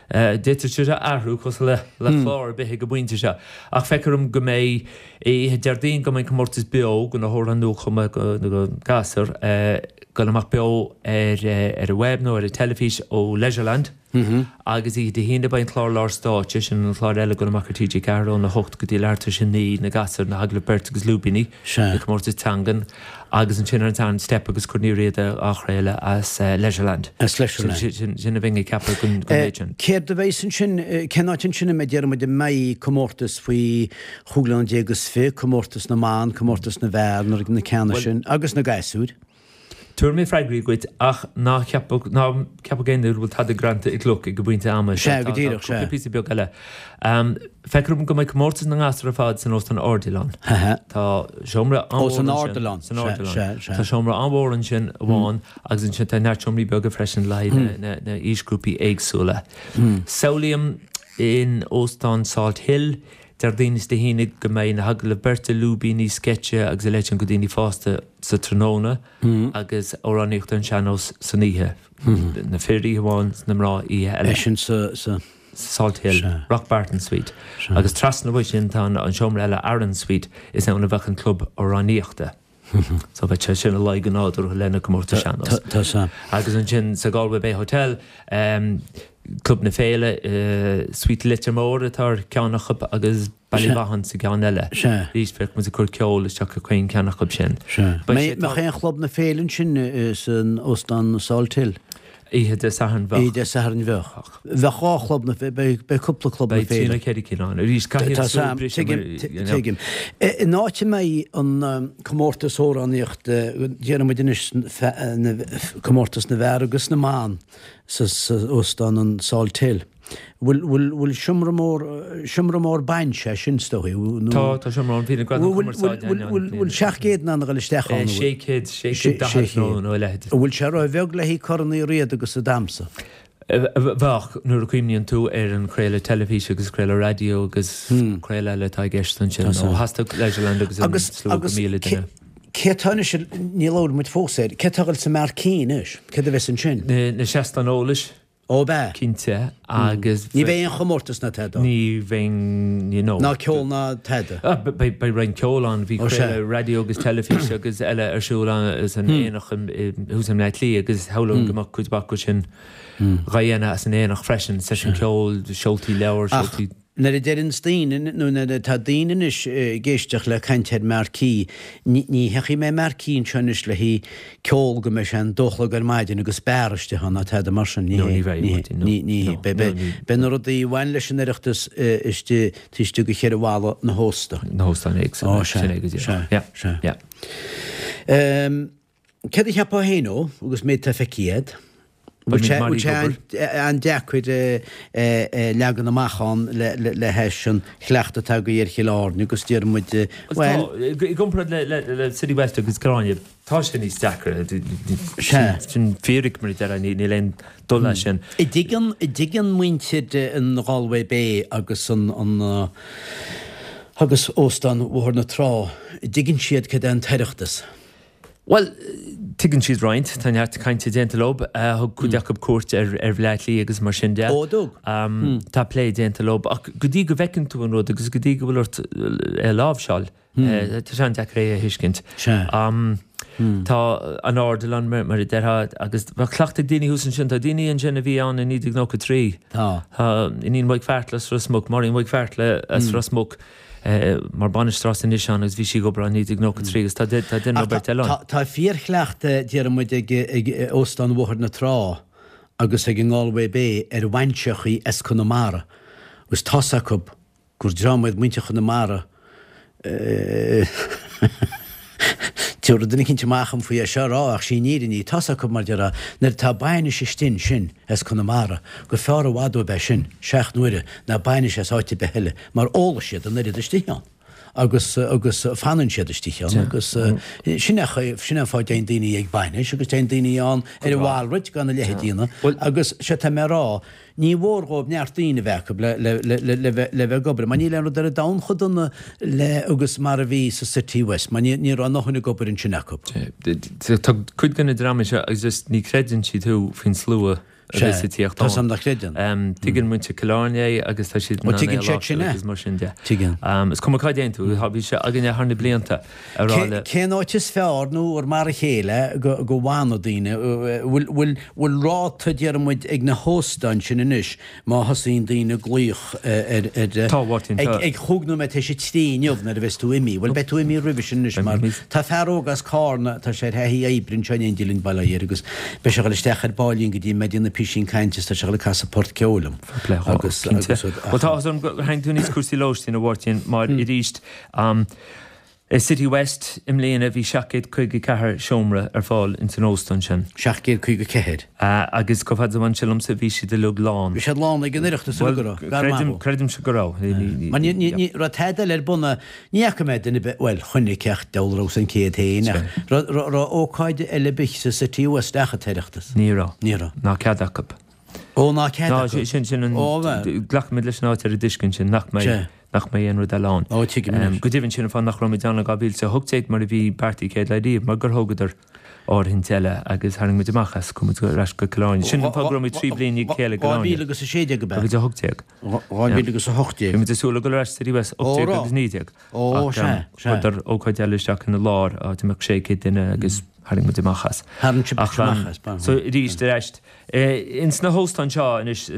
d'fhéadfadh sé seo athrú cosúil le clár ar bith ag an bpointe seo ach feictear dom go mbeidh oíche Déardaoin go mbeidh comórtas beo do na hamhráin nuachumtha do na gasúir dul amach beo ar ar an web nó ar an teilifís ó Leisureland. Agus oíche Dé hAoine beidh an clár Lár Stáitse, sin an clár eile ag dul amach ar TG4 óna 8 go dtí leathuair tar éis a 9, na gasúir, na hagallaimh beirte agus lúibíní, na comórtais teangan agus ansin ar an Satharn Steip agus Corn Uí Riada á chraoladh as Leisureland. As Leisureland. Sin a bheinn ag ceapadh don méid sin. Céard a bheas ansin, cén áit ansin a mbeidh, déarfaidh muid, a mbeidh comórtas faoi chúig bliana déag is fi, comórtas na mban, comórtas na bhfear, na ceanna sin agus na gasúir? Tabharfaidh mé freagraí duit ach ná ceapadh, ná ceapadh éinne go bhfuil tada greanta i gcloch ag an bpointe ama seo. Sea, go díreach, sea. Tá cúpla píosa beag eile. Feictear dom go mbeidh comórtas na ngasúr ar fad san Óstán Ardilaun. Tá seomra an-mhór ansin. Ó, san Ardilaun. San Ardilaun. Sea, sea. Tá seomra an-mhór ansin amháin agus ansin tá neart seomraí beaga freisin le haghaidh na n-aoisghrúpaí éagsúla. Samhlaím in Óstán Salthill, Déardaoin is Dé hAoine go mbeidh na hagallaimh beirte, lúibíní, sceitse agus a leithéid sin do dhaoine fásta sa tráthnóna agus amhránaíocht ar an sean-nós san oíche. Na fir oíche amháin, na mná oíche eile. É sin sa, sa. Salthill, Rock Barton Suite. Agus trasna uaidh sin tá an seomra eile, Aran Suite, is ann a bheadh an club amhránaíochta. So bheadh sé sin ag luí go nádúrtha le na comórtais sean-nós. Tá sé. Agus ansin sa Galway Bay Hotel, Club na Féile, Suite Leitir Móir atá ar cheann acu agus Ballyvaughan sa gceann eile. Sea. Arís bheadh muid ag cur ceol isteach i chaon cheann acu sin. Sea. Mbeadh aon Chlub na Féile ansin san Óstán Salthill? Oíche Dé Sathairn bheadh. Oíche Dé Sathairn bheadh. Bheadh dhá chlub na beidh beidh cúpla club na féile. Beidh trí nó ceithre cinn ann. Arís caithfidh an slua briseadh mar you know. Tuigim. In áit a mbeidh an comórtas amhránaíochta, déarfaidh muid anois comórtas na bhfear agus na mban sa óstán an Salthill. Bhfuil, bhfuil, bhfuil seomra mór, seomra mór bainse é sin is dóigh, nó? Tá, tá seomra ann, bhí na gradaim cumarsáide ann. Bhfuil, bhfuil, bhfuil 700 in ann a dhul isteach ann? 600, 640 nó, nó a leithéid. An bhfuil sé ró-bheag le haghaidh Corn Uí Riada agus an damhsa? Bheadh, nuair a chuimhníonn tú ar an chraoladh teilifíse agus craoladh raidió agus craoladh eile atá i gceist ansin. Ó theastaigh Leisureland agus an slua go 1,000 duine. Cé atá anois, ní labhair muid fós air, cé atá ag dul sa Marquee anois? Céard a bheas ansin? Na seastáin eolais. Ó ab ea? Cinnte, agus. Ní bheidh aon chomórtas ná tada ann? Ní bheidh, ní, no. Ná ceol ná tada? Beidh, beidh roinnt ceoil ann. Bhí craoladh raidió agus teilifíse agus eile ar siúl ann san Aonach thuas i mBleá Cliath agus shamhlóinn go mbeadh cuid mhaith acu sin dhá dhéanamh as an Aonach freisin, seisiún ceoil, seoltaí leabhar, seoltaí. Nuair a deireanns daoine, nó nuair atá daoine anois ag éisteacht le caint ar Marquee, ní thiocfaidh mé Marquee anseo anois le haghaidh ceol go mbeidh sé an dó a chlog ar maidin agus beár istigh ann ná tada mar sin. Ní hé, ní hé, ní, ní hé. Beidh na rudaí a bhain leis an Oireachtas istigh taobh istigh de cheithre bhalla na hósta. Na hóstáin éagsúla. Ó, sea, Sin é go díreach. sea, sea. Yeah. Céard a cheapfá féin ó, agus méid atá feicthe agat? Bhfuil sé an-deacair leagan amach ann le hais an chleachtadh atá agaibh ar Chill Airne agus déarfaidh muid, bhuel. Tá, i gcomparáid le City West agus Cill Airne, tá sé níos deacra. Sin fíric mar a déarfá, níl aon dul as sin. An dtuigeann, an dtuigeann muintir an Galway Bay agus an, agus Óstán Bhóthar na Trá, an dtuigeann siad cad é an tOireachtas? Bhuel, tuigeann siad roinnt. Tá neart cainte déanta leo. Thug cuid acu cuairt ar Bhaile Átha Cliath agus mar sin de. Ó, dtug? Tá plé déanta leo. Ach go dtí go bhfeiceann tú an rud agus go dtí go bhfuil ort é a láimhseáil, tá sé an-deacair é a thuiscint. Tá an Ardilaun, mar a déarfá, agus bheadh cleachtadh ag daoine thuas ansin. Tá daoine ansin a bhí ann i 1993. Tá. Tá iníon Mhaidhc Feartla as Ros Muc, Máirín Mhaidhc Feartla as Ros Muc, mar bainistreás anois ann agus bhí sí ag obair ann i 1993 agus tá duine nó beirt eile ann. Tá fíorchleachtadh, déarfaidh muid, ag Óstán Bhóthar na Trá agus ag an nGalway Bay ar bhainseachaí as Conamara agus tá's acu gur dream iad muintir Chonamara Tiúrfaidh duine eicínt amach dhom faoi é seo a rá ach sí an fhírinne í. Tá's acu, mar déarfá, nuair atá bainis istigh ansin as Conamara, gur fearr i bhfad dóibh é sin, seacht n-uaire, ná bainis as áit ar bith eile, mar ólfaidh siad an oiread istigh ann agus agus fanann siad istigh ann agus sin é sin é an fáth a dtéann daoine ag bainis agus téann daoine ann ar a mhalrait gan a leithéid a dhéanamh agus sé tá mé a rá Ní mhór dhóibh neart daoine a bheith acu le bheith ag obair, mar níl aon rud ar an domhan chomh dona le agus mar a bhí sa City West, mar ní raibh a ndóthain ag obair ansin acu. Tá cuid de na dreamanna seo agus just ní chreideann siad thú faoin slua a bheas ag tíocht ann. Tá san nach gcreideann. Tuigeann muintir Chill Airne é agus tá siad in ann é a láimhseáil agus mar sin de. Tuigeann. Is cuma cá dtéann tú, bhí sé againne thar na blianta. a rá le. Cén áit is fearr nó ar mar a chéile go bhfanadh daoine? Bhfuil bhfuil ráta, déarfaidh muid, ag na hóstáin sin anois má thosaíonn daoine ag glaoch ar Tá, a Mháirtín, tá. ag chúig nóiméad tar éis a trí inniu nuair a bheas tú imithe. Bhuel, beidh tú imithe roimhe sin anois mar tá fear óg as Cárna, tá sé ar thaithí oibre anseo in éindí linn, bail ó Dhia air, agus beidh sé ag dul isteach ar baillín go dtí an mbeidh na písín cainte is tá sé ag dul ag casadh port ceoil liom. Fair play dhó, Agus cinnte. agus Bhuel, tá áthas orm gur tharraing tú aníos cúrsaí lóistín, a Mháirtín, mar arís, I City West i mbliana bhí 754 seomra ar fáil ins an óstán sin. 754. Agus chomh fada is a bhain sé liomsa bhí siad uilig lán. Bhí siad lán ag an Oireachtas uilig, an raibh? Bhuel, creidim, creidimse go raibh. Mar ní, ní, ní raibh tada eile ar bun, ní fhaca mé duine ar bith, bhuel, chonaic ach deabhal a raibh san céad féin ach raibh, raibh, raibh ócáid eile ar bith sa City West ach an tOireachtas. Ní raibh. Ní raibh. Ná cead acu. Ó, ná cead acu. Ná, sin, sin an, Ó, bhuel. glacaimid leis an áit ar an dtuiscint sin nach mbeidh. Sea. nach mbeidh aon rud eile ann. Ó, tuigim anois. Go deimhin, sin an fáth nach raibh muid ann in 2018 mar a bhí beartaithe céad lá riamh, mar gur thógadar áirithint eile agus tharraing muid amach as, chuaigh muid ar ais go Cill Airne. Sin an fáth go raibh muid trí bliana i ndiaidh a chéile i gCill Airne. 2016 ab ea? 2018. 2018. Bhí muid ag súil le dul ar ais City West 18 agus 19. Ó, sea, sea. Chuireadar ócáid eile isteach ina lár, áit a mbeadh 600 duine agus tharraing muid amach as. Tharraing sibh amach as, b'ea. So arís ar ais, ins na hóstáin seo anois,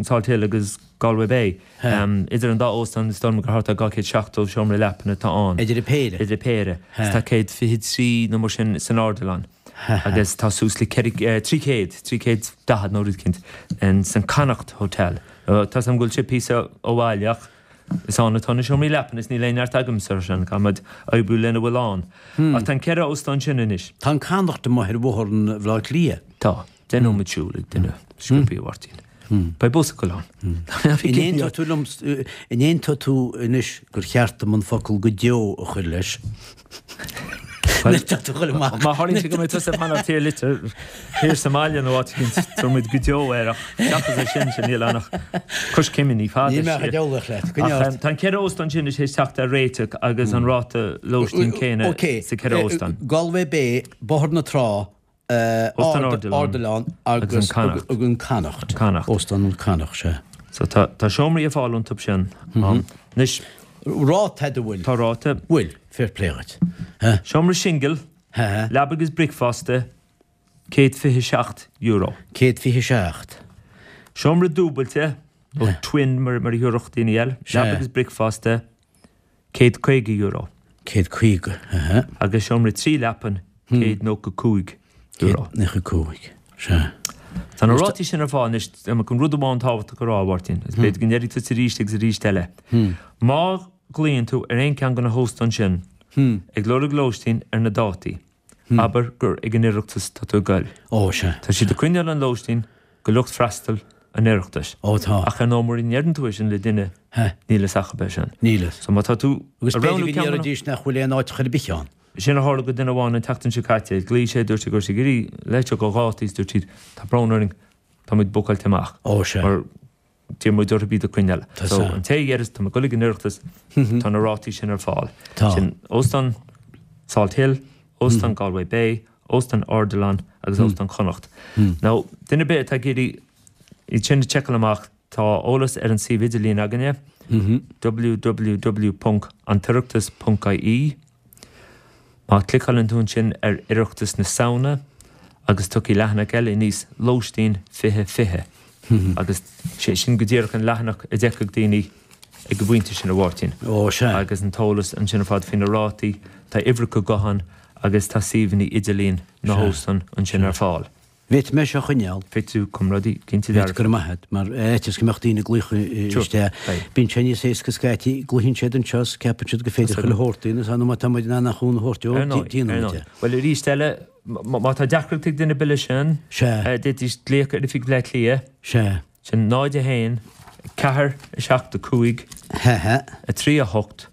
Salt Hill agus Galway Bay, Idir an dá óstán, is dóigh liom gur thart ar 270 seomra leapan atá ann. Idir an péire. Idir an péire. Is tá 123 nó mar sin san Ardilaun. Agus tá suas le 300, 340 nó rud eicínt san Connacht Hotel. Tá 's agam go bhfuil sé píosa ó bhaile ach is ann atá na seomraí leapan is níl aon neart agamsa air sin, caithfidh muid oibriú lena bhfuil ann. Ach tá an ceithre óstán sin anois. Tá an Connacht amuigh ar Bhóthar Bhaile Átha Cliath. Tá. Deich nóiméad siúil ag duine sciobthaí, a Mháirtín. Beidh bus ag dul ann. An aontóidh tú liom, an aontóidh tú anois gur cheart dom an focal 'go deo' a chur leis? Nuair atá tú ag dul amach. Má tharlaíonn sé go mbeidh tusa ag fanacht thiar litir, thiar sa mbaile nó áit éicint, tabharfaidh muid 'go deo' air ach seachas é sin, sin níl ann ach coiscéim ní fada Níl mé ach ag deabhladh leat. Go neart. Ach tá an ceithre óstán sin anois théis teacht ar réiteach agus an ráta lóistín céanna sa ceithre óstán. Galway Bay, Bóthar na Trá, Ardilaun agus an Connacht. Óstán an Connacht, sea. So tá tá seomraí ar fáil iontu sin. Anois. Ráta an bhfuil? Tá ráta. Bhfuil, fair play dhuit. Seomra singil, leaba agus bricfeasta, €127. 127. Seomra dúbailte, nó twin mar a thabharfadh daoine air, leaba agus bricfeasta, €150. 150, aha. Agus seomra 3 leapan, €195. 195, sea. Tá na rátaí sin ar fáil anois, tá mé chun rud amháin tábhachtach a rá, a Mháirtín, agus b'fhéidir go ndéarfaidh tusa arís agus arís eile. Má ghlaonn tú ar aon cheann de na hóstáin sin ag lorg lóistín ar na dátaí, abair gur ag an Oireachtas tá tú ag goil. Ó, sea. Tá siad ag coinneáil an lóistín. go lucht freastail an Oireachtais. Ó tá. Ach ar ndóigh mura ndeireann tú é sin le duine, níl fhios acu é sin. Níl fhios. So má tá tú Agus ag b'fhéidir roghnú go ceann de na. ndéarfaidís nach bhfuil aon áit chor ar bith ann. Sin a tharla go duine amháin an tseachtain seo caite. Ghlaoigh sé, dúirt sé go raibh sé ag iarraidh leithéid de dhátaí is dúirt siad, tá brón orainn, tá muid bookáilte amach. Ó sea. Mar d'iarr muid orthu iad a choinneáil. Tá So sea. an té a dheireas tá mé ag dul ag an Oireachtas, tá na rátaí sin ar fáil. Tá. Sin Óstán Salthill, Óstán Galway Bay, Óstán Ardilaun agus Óstán Chonnacht. Now, duine ar bith atá ag iarraidh iad sin a sheiceáil amach, tá eolas ar an suíomh idirlín againne, www.antoireachtas.ie. Má chliceálann tú ansin ar Oireachtas na Samhna agus tiocfaidh leathanach eile aníos, Lóistín 2020. Agus sé sin go díreach an leathanach a d'fheicfeadh daoine ag an bpointe sin, a Mháirtín. Ó, sea. Agus an t-eolas ansin ar fad faoi na rátaí, tá uimhreacha gutháin agus tá suíomhanna idirlín na hóstán ansin ar fáil. Bhféadfaidh mé seo a choinneáil? Féadfaidh tú, comrádaí, cinnte dearfa. Go raibh maith agat, mar fhaitíos go mbeadh daoine ag glaoch isteach. Bíonn sé níos éasca scaití, glaofaidh siad anseo is ceapann siad gur féidir chuile shórt a dhéanamh, nó má tá muid in ann aon chúnamh a thabhairt dóibh, déanfaidh muid é. Bhuel, arís eile, má tá deacracht ag duine ar bith leis sin, d'fhéadfaidís glaoch ar oifig Bhaile Átha Cliath. Sea. Sin 0, 1, 4, 7, 5, 3, 8, 3, 8,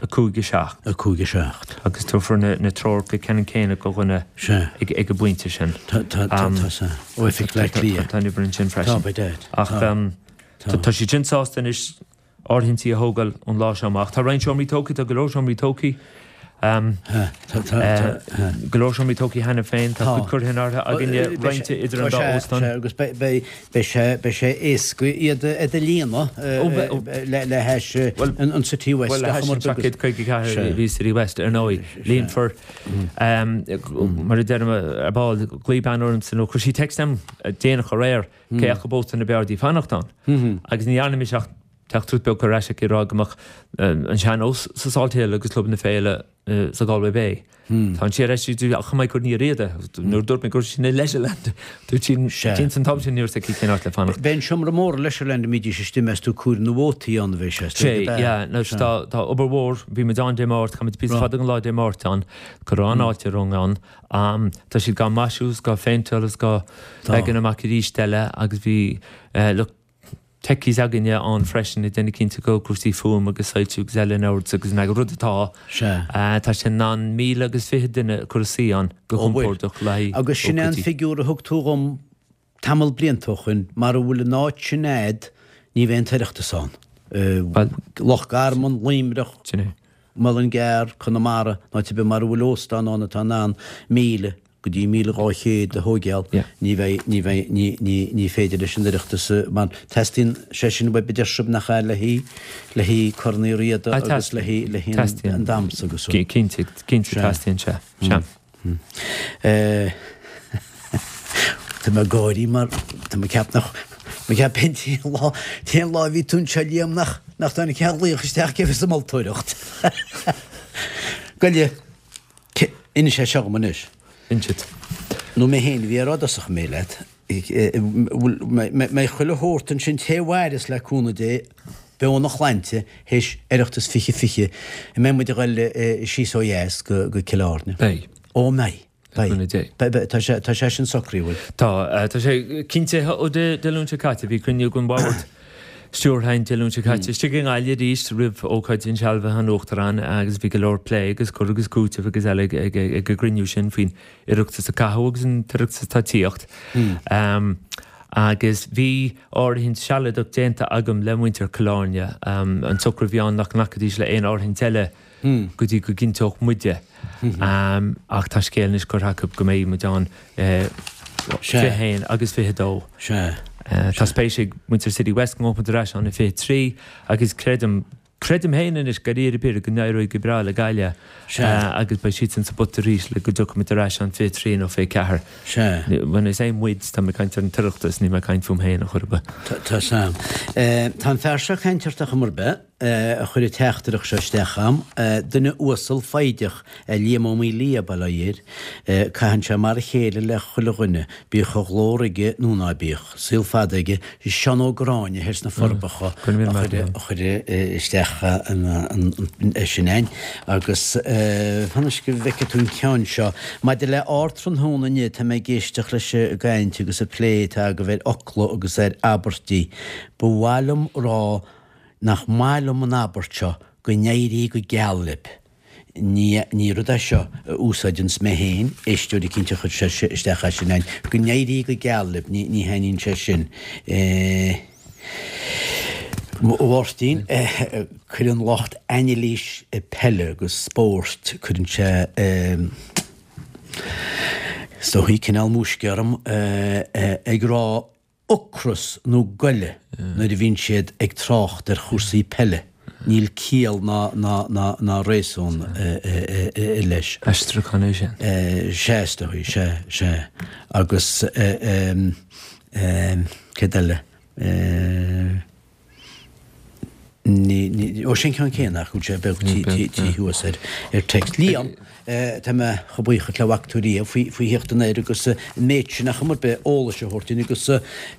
5, 7. 5, 7. Agus tabharfar na treoracha ceannann céanna go dhuine ag an bpointe sin. Tá, tá, tá, tá, sea. Ó Oifig Bhaile Átha Cliath. Tá an uimhir ansin freisin. Tá, beidh dead. Ach tá siad sin sásta anois áirithintí a thógáil ón lá seo amach. Tá roinnt seomraí tógtha, tá go leor seomraí tógtha. Go leor seomraí tógtha cheana féin, tá cuid curtha in áirithe againne, roinnte idir an dá óstán. Agus beidh sé éasca iad a líonadh le hais an City West. Bhuel, le hais an 754 a bhí City West, ar ndóigh. Líonfar, mar a deirim ar ball, ghlaoigh bean ormsa nó chuir sí text orm déanach aréir, cé acu óstán ab fhearr di fanacht ann. Agus ní dhearna mise ach teachtaireacht beag ar ais aici ag rá go mbeadh an sean-nós sa Salthill agus Club na Féile sa Galway Bay. Tá an siar aici ach chomh maith gur ní riada. Nuair a dúirt mé go raibh sin i Leisureland, dúirt sí ins an t-am sin ní raibh aici cén áit le fanacht. B'é an seomra mór i Leisureland a mbídís istigh meas tú comhaireamh na vótaí ann a bheidh sé. Sé, yeah, anois tá tá obair mhór, bhí muid ann Dé Máirt, chaith muid píosa fada den lá Dé Máirt ann, cuireadh an-fháilte romhainn ann. Tá siad á maisiú is á phéinteáil is á leagan amach arís eile agus bhí lucht techies againne ann freisin ag déanamh cinnte go bhfuil cúrsaí fuaim agus soilsiú agus eile in ord agus in eagar, rud atá. Sea. Tá sé in ann 1,020 duine a chur a suí ann go Ó bhfuil. compordach le haghaidh Agus sin é an ócáidí. figiúr a thug tú dhom tamall blianta ó shoin, mara bhfuil an áit sin a'd, ní bheidh an tOireachtas ann. Bhuel. Loch Garman, Luimneach. Sin é. Muileann gCearr, Conamara, nó cibé mara bhfuil óstán ann atá in ann 1,000 go dtí 1,200 a thóigeáil, ní bheidh, ní bheidh, ní, ní, ní féidir leis an Oireachtas mar teastaíonn sé sin uaibh, a deir sibh, nach ea, le haghaidh, le haghaidh Corn Uí Riada agus le haghaidh, le haghaidh an, an damhsa agus. Cinnte, cinnte teastaíonn sé, sea. Tá mé ag gáirí mar tá mé ag ceapadh nach, mé ag ceapadh an t-aon lá, t-aon lá a bhí tú anseo Liam nach, nach dtáinig aon ghlaoch isteach cé bhí sa moltóireacht. Goile, inis é seo dhom anois. Insead. Nó mé féin a bhí á rá i dtosach mé leat, bhfuil, mbeidh chuile shórt ansin té a mhaireas le cúnamh Dé, beo ina shláinte théis Oireachtas 2020, an mbeidh muid ag dul síos ó dheas go Cill Airne? Beidh. Ó mbeidh. Le cúnamh Dé. Beidh, tá sé, tá sé sin socraithe, bhfuil? Tá, tá sé cinntithe ó Dé Luain seo caite. Bhí cruinniú den bhord stiúrtha againn Dé Luain seo caite istigh i nGaillimh arís roimh ócáid insealbhaithe an Uachtaráin agus bhí go leor plé agus cur agus cúiteamh agus eile ag ag an gcruinniú sin faoin Oireachtas a caitheadh agus an tOireachtas atá ag tíocht. Agus bhí áirithint sealadach déanta agam le muintir Chill Airne. An socrú a bhí ann nach nglacfaidís le aon áirithint eile go dtí go gcinnteodh muide. Ach tá scéal anois curtha acu go mbeidh muid ann 21 agus 22. Tá spéis ag muintir City West go ngabhfaidh muid ar ais ann i 23 agus creidim Creidim féin anois, dáiríre píre, go n-éireoidh go breá le Gaillimh agus beidh siadsan sa bpota arís le go dtiocfaidh muid ar ais ann 23 nó 24. Sea. When I say muid, tá mé ag caint ar an tOireachtas, níl mé ag caint fúm féin ar chor ar bith. Tá 's a'm. Tá an fear seo ag caint ort ar chuma ar bith. a chuir an teachtaireacht seo isteach agam. Duine uasal foighdeach é Liam Ó Maolaodha, bail ó Dhia air. Caitheann sé mar a chéile le chuile dhuine, bíodh a ghlór aige nó ná bíodh. Saol fada aige. Seán Ó Gráinne thoir sna Forbacha a chuir isteach é sin a'inn. Agus fan anois go bhfeicfidh tú an ceann seo. Maidir le Ardtráthnóna inniu, tá mé ag éisteacht leis an gcaint agus an plé atá agaibh ar fhocla agus ar abairtí. Ba mhaith liom rá nach maith liom an abairt seo, go n-éirí go geal libh. Ní, ní rud é seo a úsáideanns mé féin, éisteoir eicínt a chuir sé isteach é sin a'inn, go n-éirí go geal libh, ní, ní thaitníonn sé sin. Eh, a Mháirtín, eh, cuireann lucht anailís peile agus spóirt, cuireann sé, eh, is dóichí cineál múisce orm, eh, eh, ag rá, ocras nó goile nuair a bhíonn siad ag trácht ar chúrsaí peile. Níl ciall ná réasún leis. Aistriúchán é sin. Sea, is dóigh, sea, sea. Agus céard eile? Ní, ní, ó sin ceann céanna ach bhfuil sé beag tí thuas ar ar text. Liam, tá mé chomh buíoch le bhfaca tú riamh faoi faoi thíocht anoir agus an méid sin ar chuma ar bith eolais a thabhairt dúinn agus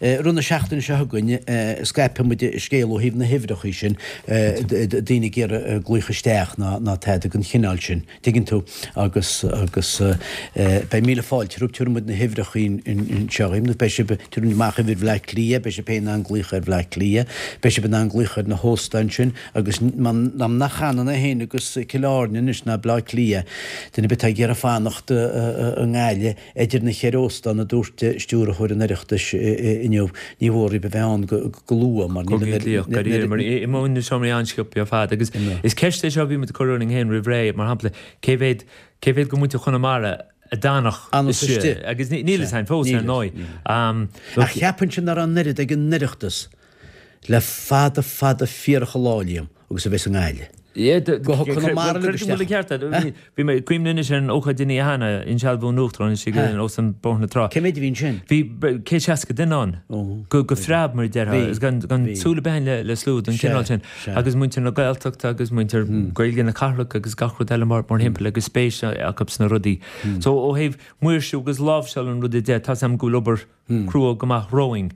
rith na seachtaine seo chugainn scaipfidh muid scéal ó thaobh na huimhreacha sin daoine ag iarraidh glaoch isteach ná ná tada den chineál sin. Tuigeann tú, agus, agus beidh míle fáilte romhaibh, tabharfaidh muid na huimhreacha anseo dhaoibh, nó beidh sibh, tabharfaidh muid amach uimhir Bhleá Cliath, beidh sibh féin in ann glaoch ar Bhleá Cliath, beidh sibh in ann glaoch ar na hóstáin sin, agus nach ionann é féin agus Cill Airne anois ná Bleá Cliath, duine ar bith atá ag iarraidh fanacht i nGaillimh, Idir na cheithre óstán, a dúirt Stiúrthóir an Oireachtais inniu, ní mór daoibh a bheith ann go luath mar níl an oiread. Mar imeoidh na seomraí an-sciobtha ar fad. Agus is ceist é seo a bhí muid ag cur orainn féin roimh ré, mar shampla, cé mhéad, cé mhéad de mhuintir Chonamara a d'fhanfadh istigh? Agus níl a fhios againn fós, ar ndóigh. Ach cheapfainnse nach raibh an oiread ag an Oireachtas le fada fada fíorach an lá, Liam, agus a bheas i nGaillimh. Go Conamara le go isteach. Bhí mé ag cuimhneamh anois ar an ócáid inné cheana, insealbhú an Uachtaráin istigh in Óstán Bóthar na Trá. Cé mhéad a bhí ansin? Bhí 160 duine ann. Go preab, mar a déarfá. Agus gan súil ar bith againn le slua den chineál sin. Agus muintir na Gaeltachta agus muintir Gaeilge na cathrach agus gach rud eile mar thimpeall agus spéis acu sna rudaí. So ó thaobh maoirsiú agus láimhseáil an ruda de, tá 's agam go bhfuil obair crua go maith romhainn.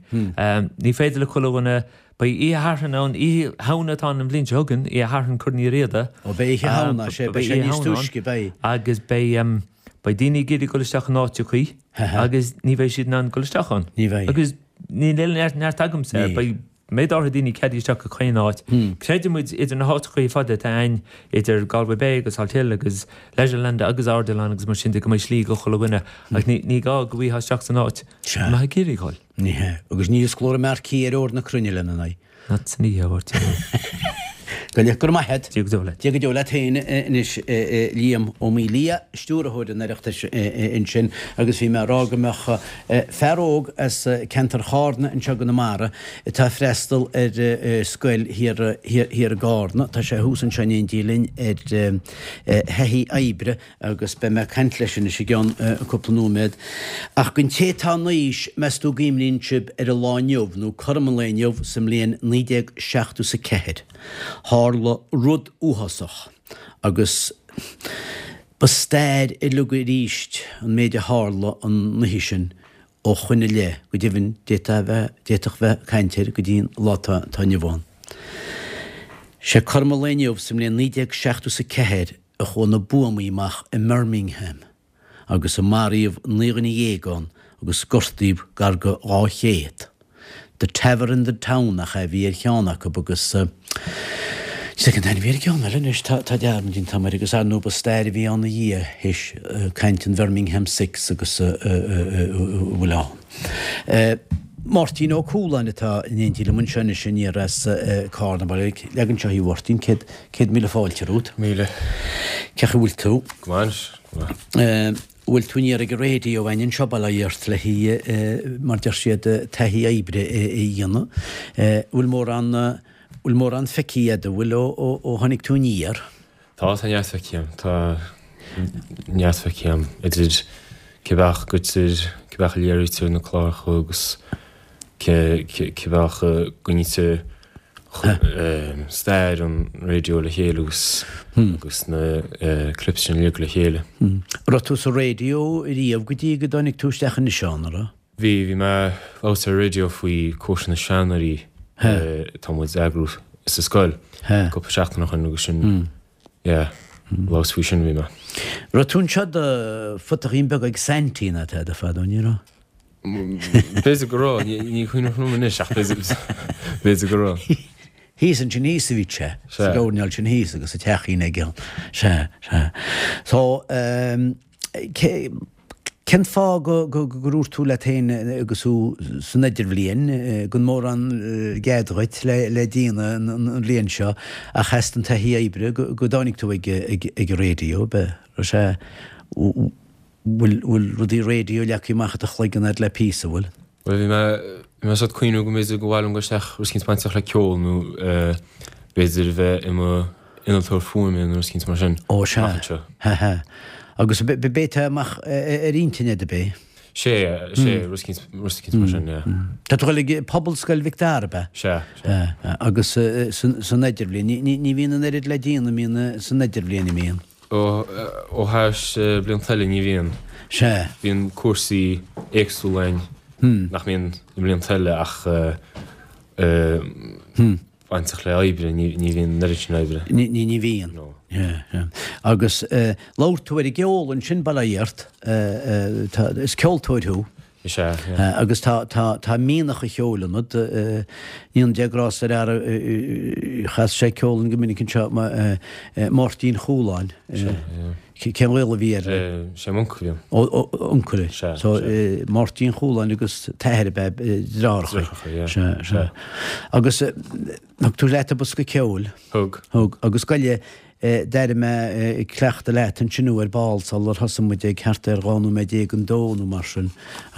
Ní féidir le chuile dhuine, beidh oíche Shathairn ann, oíche Shamhna atá ann an bhliain seo chugainn, oíche Shathairn Corn Uí Riada. Ó beidh oíche Shamhna, sea, beidh sé níos túisce, beidh. Agus beidh, beidh daoine ag iarraidh dul isteach in áiteachaí agus ní bheidh siad in ann dul isteach ann. Ní bheidh. Agus níl aon neart agamsa air, beidh méid áirithe daoine ceadaithe isteach go chaon áit. Creideann muid idir na háiteachaí ar fad atá ann, idir Galway Bay agus Salthill agus Leisureland agus Ardilaun agus mar sin de, go mbeidh slí go chuile dhuine. Ach ní gá go bhfaighfeá isteach san áit a mbeifeá ag iarraidh a dhul. Ní hea. Agus ní osclófar an marquee ar ord na cruinne lena n-aghaidh. Not san oíche, a Mháirtín. Go leith, go raibh maith agat. Dia go deo leat. Dia go deo leat féin anois, Liam Ó Maolaodha, Stiúrthóir an Oireachtais ansin, agus bhí mé ag rá go mbeadh fear óg as ceantar Chárna anseo i gConamara atá ag freastal ar scoil thiar i gCárna, tá sé thuas anseo in éindí linn ar thaithí oibre agus beidh mé ag caint leis anois i gceann cúpla nóiméad. Ach don té atá in aois, meas tú an gcuimhníonn sibh ar an lá inniu, nó cothrom an lae inniu sa mbliain 1974, tharla rud uafásach agus ba stair uilig arís an méid a tharla an oíche sin ó shoin i leith, go deimhin, d'fhéadfá bheith, d'fhéadfadh bheith ag caint air go dtí an lá atá inniu ann. Sé cothrom an lae inniu sa mbliain 1974 a chuaigh na buamaí amach i mBirmingham agus a maraíodh 19 dhuine ann agus gortaíodh gar go 200. The Tavern in the Town nach ea a bhí ar cheann acu agus cén t-ainm a bhí ar an gceann eile anois, tá dearmad déanta agam air agus ar ndóigh ba stair a bhí ann ina dhiaidh théis caint an Bhirmingham Six agus a bhfuil ann. Máirtín Ó Cualáin atá in éindí liom anseo anois aniar as Carna. Leag anseo í a Mháirtín, 100,000 fáilte romhat. Míle. Cén chaoi a bhfuil tú? Go maith anois, go maith. Bhfuil tú aniar ag an raidió againn anseo, bail ó Dhia ort, le haghaidh, mar deir siad, taithí oibre a dhéanamh. Bhfuil mórán, bhfuil mórán feicthe agat, an bhfuil, ó tháinig tú aniar? Tá, tá neart feicthe agam. Tá neart feicthe agam idir cé bealach a gcuirtear, cé bealach a léirítear na cláracha agus cé bealach a gcoinnítear. Stair an raidió le chéile agus agus na clips sin uilig le chéile. An raibh tú sa raidió riamh go dtí go dtáinig tú isteach anois ann, an raibh? Bhí, bhí mé ag labhairt ar raidió faoi cóisir na seanóirí atá muid a eagrú sa scoil cúpla seachtain ó shin agus sin, yeah, labhairt faoi sin a bhí mé. Raibh tú anseo do phutachaín beag ag Saintí nó tada fadó, ní raibh? B'fhéidir go raibh, ní cuimhin liom anois ach b'fhéidir go raibh. Thíos ansin thíos a bhí sé, sa gcoirnéal sin thíos agus sa teachín aige ann. Sea, sea. So, cén fáth go gur dhúirt tú leat féin agus thú san idirbhliain, gan mórán cead dhuit le déanamh an bhliain seo ach as an taithí oibre, go dtáinig tú ag an raidió, ab ea? Raibh sé. Bhfuil, bhfuil rudaí raidió leagtha amach i do chloigeann a'd le píosa, bhfuil? Bhuel bhí mé, bhí mé sórt cuimhneamh go mb'fhéidir gur mhaith liom dul isteach rud eicínt bainteach le ceol nó b'fhéidir bheith i mo innealtóir fuaime nó rud eicínt mar sin. Ó sea. Amach anseo. Ha ha. Agus beidh tú amach ar intinn a'd, ab é? Sea, sea, rud eicínt, rud eicínt mar sin, yeah. Tá tú ag dul ag Pobalscoil Mhic Dara, ab ea? Sea, sea. Agus san idirbhliain, ní, ní bhíonn an oiread le déanamh, mbíonn san idirbhliain, an mbíonn? Ó théis blianta eile ní bhíonn. Sea. Bíonn cúrsaí éagsúla ann nach mbíonn i mblianta eile ach bainteach le oibre, ní bhíonn an oiread sin oibre. Ní bhíonn. No. Sea, sea. Agus labhair tú ar an gceol ansin, bail ó Dhia ort. Is ceoltóir thú. Is ea, yeah. Agus tá, tá, tá mianach an cheoil ionat. Ndéana Dia grásta ar fhear a chas sé ceol linn go minic anseo, Máirtín Chualáin. Sea, yeah. Cén gaol a bhí air? Sé m'uncail é. Ó, uncail é. Sea, So, sea. Máirtín Chualáin agus t'athair ab ea deartháireacha. Deartháireacha, yeah. Sea, sea. Agus thug tú leat an bosca ceoil? Thug. Thug. Agus goile, D'airigh mé ag cleachtadh leat ansin thú ar ball sular thosaigh muid ag thart ar 12 nóiméad don dó nó mar sin.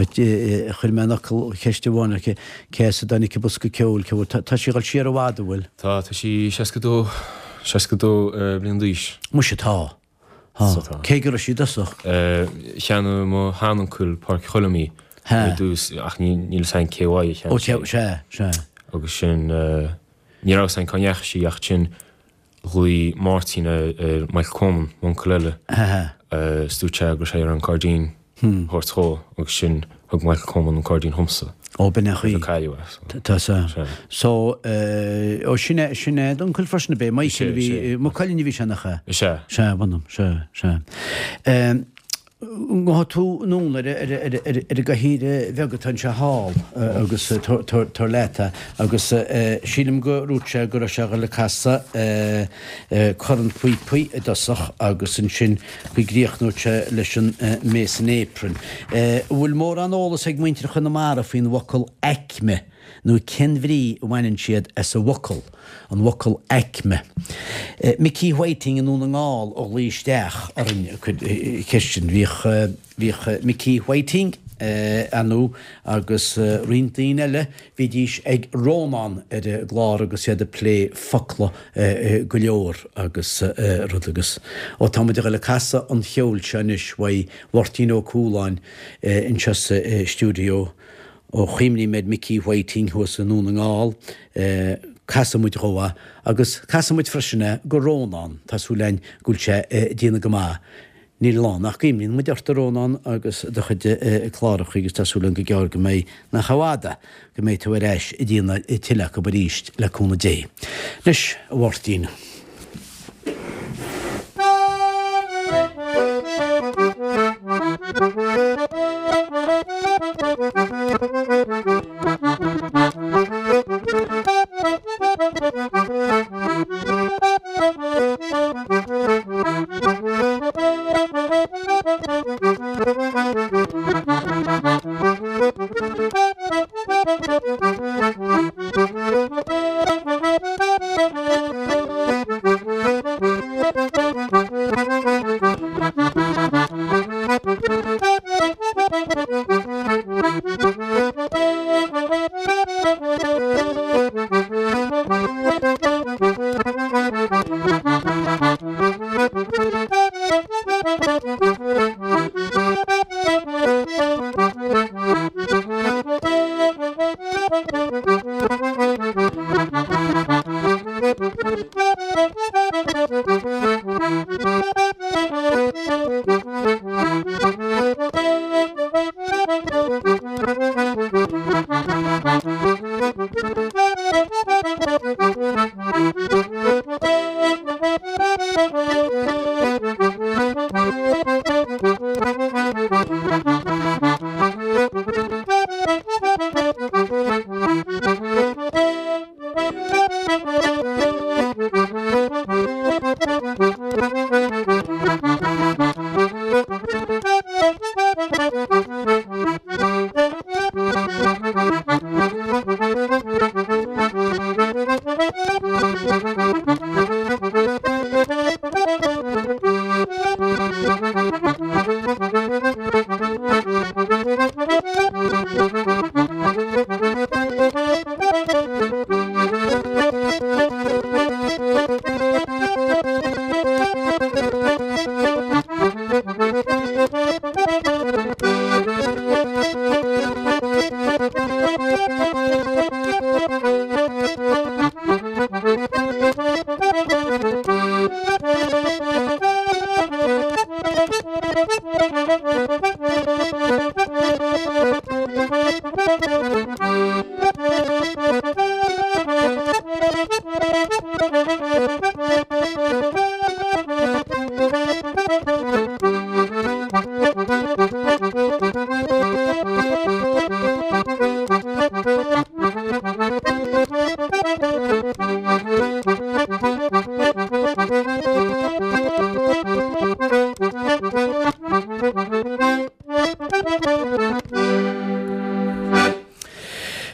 Chuir mé an fhocal, ceist amháin uirthi, cé as a dtáinig an bosca ceoil, cé bhfuil, tá sí ag dul siar i bhfad, an bhfuil? Tá, tá sí 62, 62 bliain d'aois. Muise tá. Tá. Tá. Cé go raibh sí i dtosach? Cheannaigh mo sheanuncail Páirc Choilm í ar dtús ach níl fhios a'inn cé uaidh a cheannaigh sé í. Ó, sea, sea. Agus sin, ní raibh fhios a'inn cá ndeachaigh sí ach sin Ghlaoigh Máirtín ar Michael Coleman, m'uncail eile, is dúirt sé go raibh sé ag iarraidh an cairdín a thabhairt dhó agus sin thug Michael Coleman an cairdín dhomsa. Ó, b'in é an chaoi. Agus cailleadh é, so. Tá sa. So, ó sin é, sin é d'uncail freisin ab é, Michael a bhí, Maigh Cuilinn a bhí sé nach ea? Is ea. Sea, mh'anam, sea, sea. Gabhfaidh tú anonn ar an gcathaoir bheag atá anseo thall agus tabhair leat é. Agus sílim go ndúirt sé go raibh sé ag dul ag casadh cornphíopaí i dtosach agus ansin go gcríochnódh sé leis an Mason Apron. An bhfuil mórán eolas ag muintir Chonamara faoin bhfocal aicme? nó cén bhrí a bhaineann siad as an bhfocal, an bhfocal aicme. Micí Whiting i nDún na nGall a ghlaoigh isteach orainn an cheist sin. Bhíodh, bhíodh Micí Whiting, ar ndóigh, agus roinnt daoine eile, bhídís ag Rónán ar an gclár agus iad ag plé focla go leor agus rud agus, ó tá muid ag dul ag casadh an cheoil seo anois uaidh Mháirtín Ó Cualáin anseo sa stiúideo. Ó chuimhním ar Micí Whiting thuas i nDún na nGall, casfaidh muid dhó é, agus casfaidh muid freisin é go Rónán, tá súil againn go bhfuil sé ag déanamh go maith. Níl ann ach go gcuimhníonn muid ort a Rónán agus do chuid cláracha agus tá súil againn go gearr go mbeidh, nach i bhfad, go mbeidh tú ar ais ag déanamh tuilleadh acu arís le cúnamh Dé. Anois, a Mháirtín.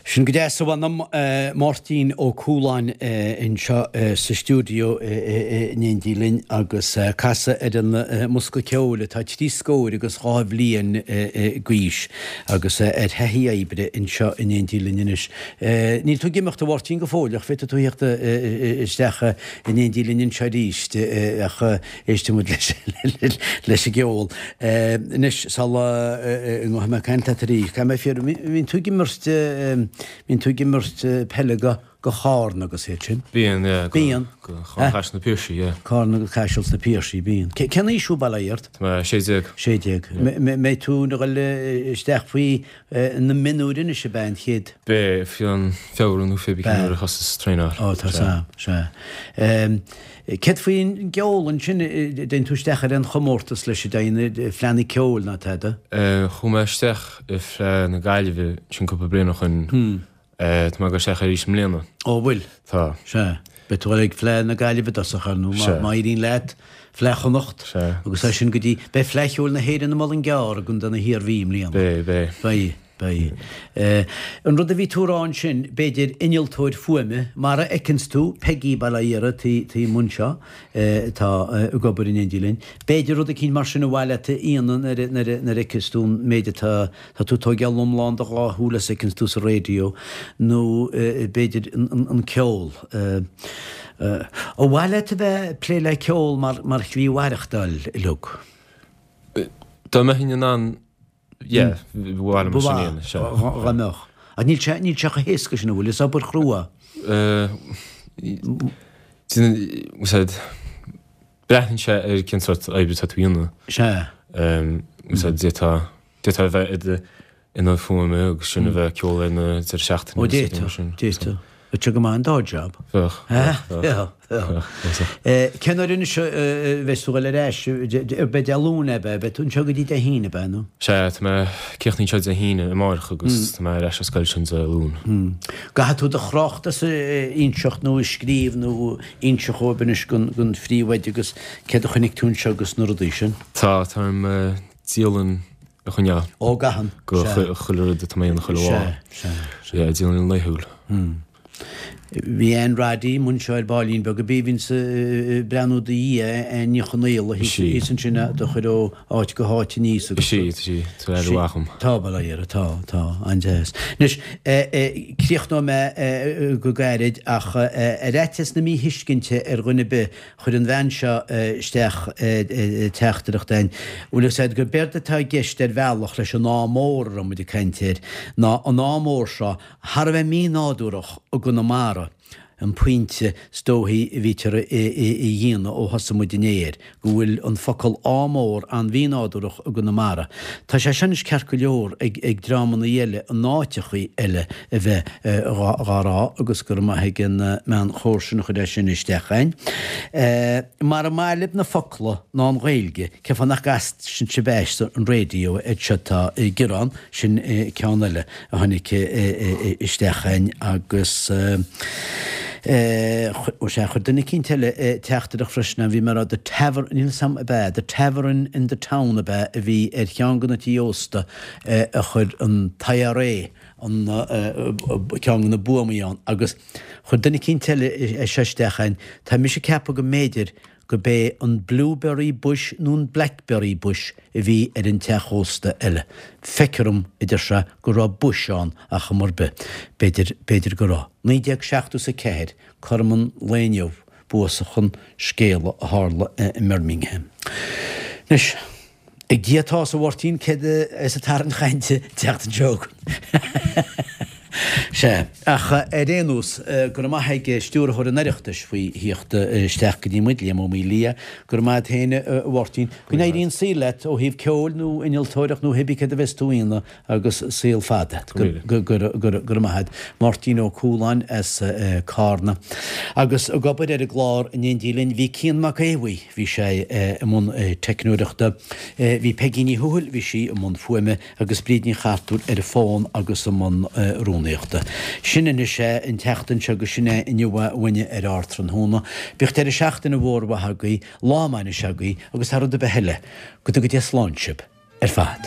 Sin go deas a mh'anam, Máirtín Ó Cualáin anseo sa stiúideo in éindí linn agus casadh ar an mbosca ceoil atá trí scóir agus dhá bhliain d'aois agus ar thaithí oibre anseo in éindí linn anois. Níl tú ag imeacht a Mháirtín go fóill ach féadfaidh tú theacht isteach in éindí linn anseo arís ach éistfidh muid leis an gceol. Anois, sula ngabhfaidh mé ag caint leat arís, caithfidh mé fiafraí, mbíonn tú ag imirt, mbíonn tú ag imirt peile go, go Charna agus iad sin? Bíonn, yeah. Bíonn. Go Charna Caiseal sna Piarsaigh, yeah. Carna agus Caiseal sna Piarsaigh, bíonn. Cén aois thú, bail ó Dhia ort? Tá mé 16. 16. Mbeidh tú ag dul isteach faoi na mionúir anois, ab ea, an chéad? Beidh, faoi an Feabhra nó pé bí cén uair a thosas traenáil. Ó, tá sea, sea. Céard faoin gceol ansin, dtéann tú isteach ar aon chomórtas leis an dtéann fleánna ceoil ná tada? Chuaigh mé isteach i Fleadh na Gaillimhe sin cúpla bliain ó shoin. Tá mé ag dul isteach arís i mbliana. Ó bhfuil? Tá. Sea. Beidh tú ag Fleadh na Gaillimhe i dtosach, ar ndóigh, má éiríonn leat, Fleadh Chonnacht. Sea. Agus as sin go dtí, beidh Fleadh Cheoil na hÉireann i Mullingar i gContae na hIarmhí i mbliana. Beidh, beidh. Beidh. Beidh. An rud a bhí tú a rá ansin, b'fhéidir innealtóir fuaime, mar a fheiceanns tú, Peggy bail ó Dhia uirthi, taobh amuigh anseo, atá ag obair in éindí linn. B'fhéidir rud eicínt mar sin ar mhaith leat a dhéanamh nuair a, nuair a, nuair a fheiceas tú an méid atá, tá tú ag tóigeáil iomlán do dhá shúil as a fheiceanns tú sa raidió, nó b'fhéidir an, an, an ceol. Ar mhaith leat a bheith ag plé le ceol mar, mar shlí mhaireachtáil uilig? Dá mbeinn in ann Yeah, ba mhaith liom sin a dhéanamh, sea. Dá mbeadh. Ach níl sé, níl sé chomh héasca sin, an bhfuil? Is obair chrua. Úsáid, braitheann sé ar cén sórt oibre atá tú a dhéanamh. Sea. Úsáid, d'fhéadfá, d'fhéadfá a bheith i do innealtóir fuaime agus sin a bheith ag ceol ar na deireadh seachtaine. Ó d'fhéadfá, d'fhéadfá. Bheadh sé go maith an dá job. Bheadh, bheadh, bheadh. Cén uair anois a bheas tú ag dul ar ais? Beidh Dé Luain ab ea? Beidh tú anseo go dtí Dé hAoine, ab ea, nó? Sea, tá mé críochnaithe anseo Dé hAoine, amárach, agus tá mé ar ais ar scoil sin Dé Luain. Caithfidh tú do thráchtas a inseacht nó a scríobh nó inseacht dhóibh anois don phríomhoide agus céard a chonaic tú anseo agus na rudaí sin. Tá, tá orm dialann a choinneáil. Ó, gcaitheann. Go chuile rud atá mé a dhéanamh chuile lá. Sea, sea. Yeah, dialann laethúil. Bhí Ann Roddy amuigh anseo ar baillín beag, ab í a bhíonns ag breathnú i do dhiaidh, Ann Ní Chonaola, thíos ansin a do chur ó áit go háit aníos agus. Is í, tá sí, tá aire mhaith dhom. Tá, bail ó Dhia uirthi, tá, tá, an-deas. Anois, críochnóidh mé go gairid ach ar fhaitíos na míthuiscinte ar dhuine ar bith, Chuir an bhean seo isteach teachtaireacht a'inn. Bhfuil fhios a'd gurb éard atá i gceist ar bhealach leis an ádh mór a raibh muid ag caint air ná an ádh mór seo thar a bheith mí-nádúrach i gConamara. an pointe is dóichí a bhítear a dhéanamh ó thosaigh muid inné air, go bhfuil an focal ádh mór an-mhínádúrach i gConamara. Tá sé seo anois ceart go leor ag dreamanna eile in áiteachaí eile a bheith dhá rá agus go raibh maith ag an mbean chóir sin a chuir é sin isteach a'inn. Mara maith libh na focla ná an Ghaeilge, cén fáth nach gcasann sibh ais an raidió anseo atá i gCiarán, sin ceann eile. a tháinig isteach a'inn agus ó sea, chuir duine eicínt eile teachtaireacht freisin ann, bhí mé ag rá the tavern, níl 'fhios a'm ab ea, the tavern in the town ab ea a bhí ar cheann de na tithe ósta a chuir an t-IRA an ceann de na buamaí ann agus chuir duine eicínt eile é seo isteach a'inn, tá mise ag ceapadh go mb'fhéidir go b'é an Blueberry Bush nó an Blackberry Bush a bhí ar an teach ósta eile. Feictear dom, a deir sé, go raibh Bush ann ach am ar bith. B'fhéidir, b'fhéidir go raibh. 1974, cothrom an lae inniu, b'uafásach an scéala a tharla i mBirmingham. Anois. Ag Dia atá 'fhios a Mháirtín céard a bheas ag tarraingt chainte an tseachtain seo chugainn. Sea, ach ar aon nós, go raibh maith ag Stiúrthóir an Oireachtais faoi thíocht isteach go dtí muid, Liam Ó Maolaodha. Go raibh maith a't féin, a Mháirtín. Go n-éirí an saol leat ó thaobh ceoil nó innealtóireacht nó hébí céard a bheas tú a dhéanamh agus saol fada. Go raibh maith a't. Máirtín Ó Cualáin as Cárna. Agus ag obair ar an gclár in éindí linn bhí Cian Mac Aodha Bhuí. Bhí sé i mbun teicneoireachta. Bhí Peigí Ní Thuathail, bhí sí i mbun fuaime agus Bríd Ní Chartúir ar an bhfón agus i mbun rúnaíochta. Sin anois é an tseachtain seo agus sin é inniu uainne ar Ardtráthnóna. Bíodh deireadh seachtaine mhór mhaith agaibh, lá maith anois agaibh agus thar rud ar bith eile, go dtuga Dia slán sibh ar fad.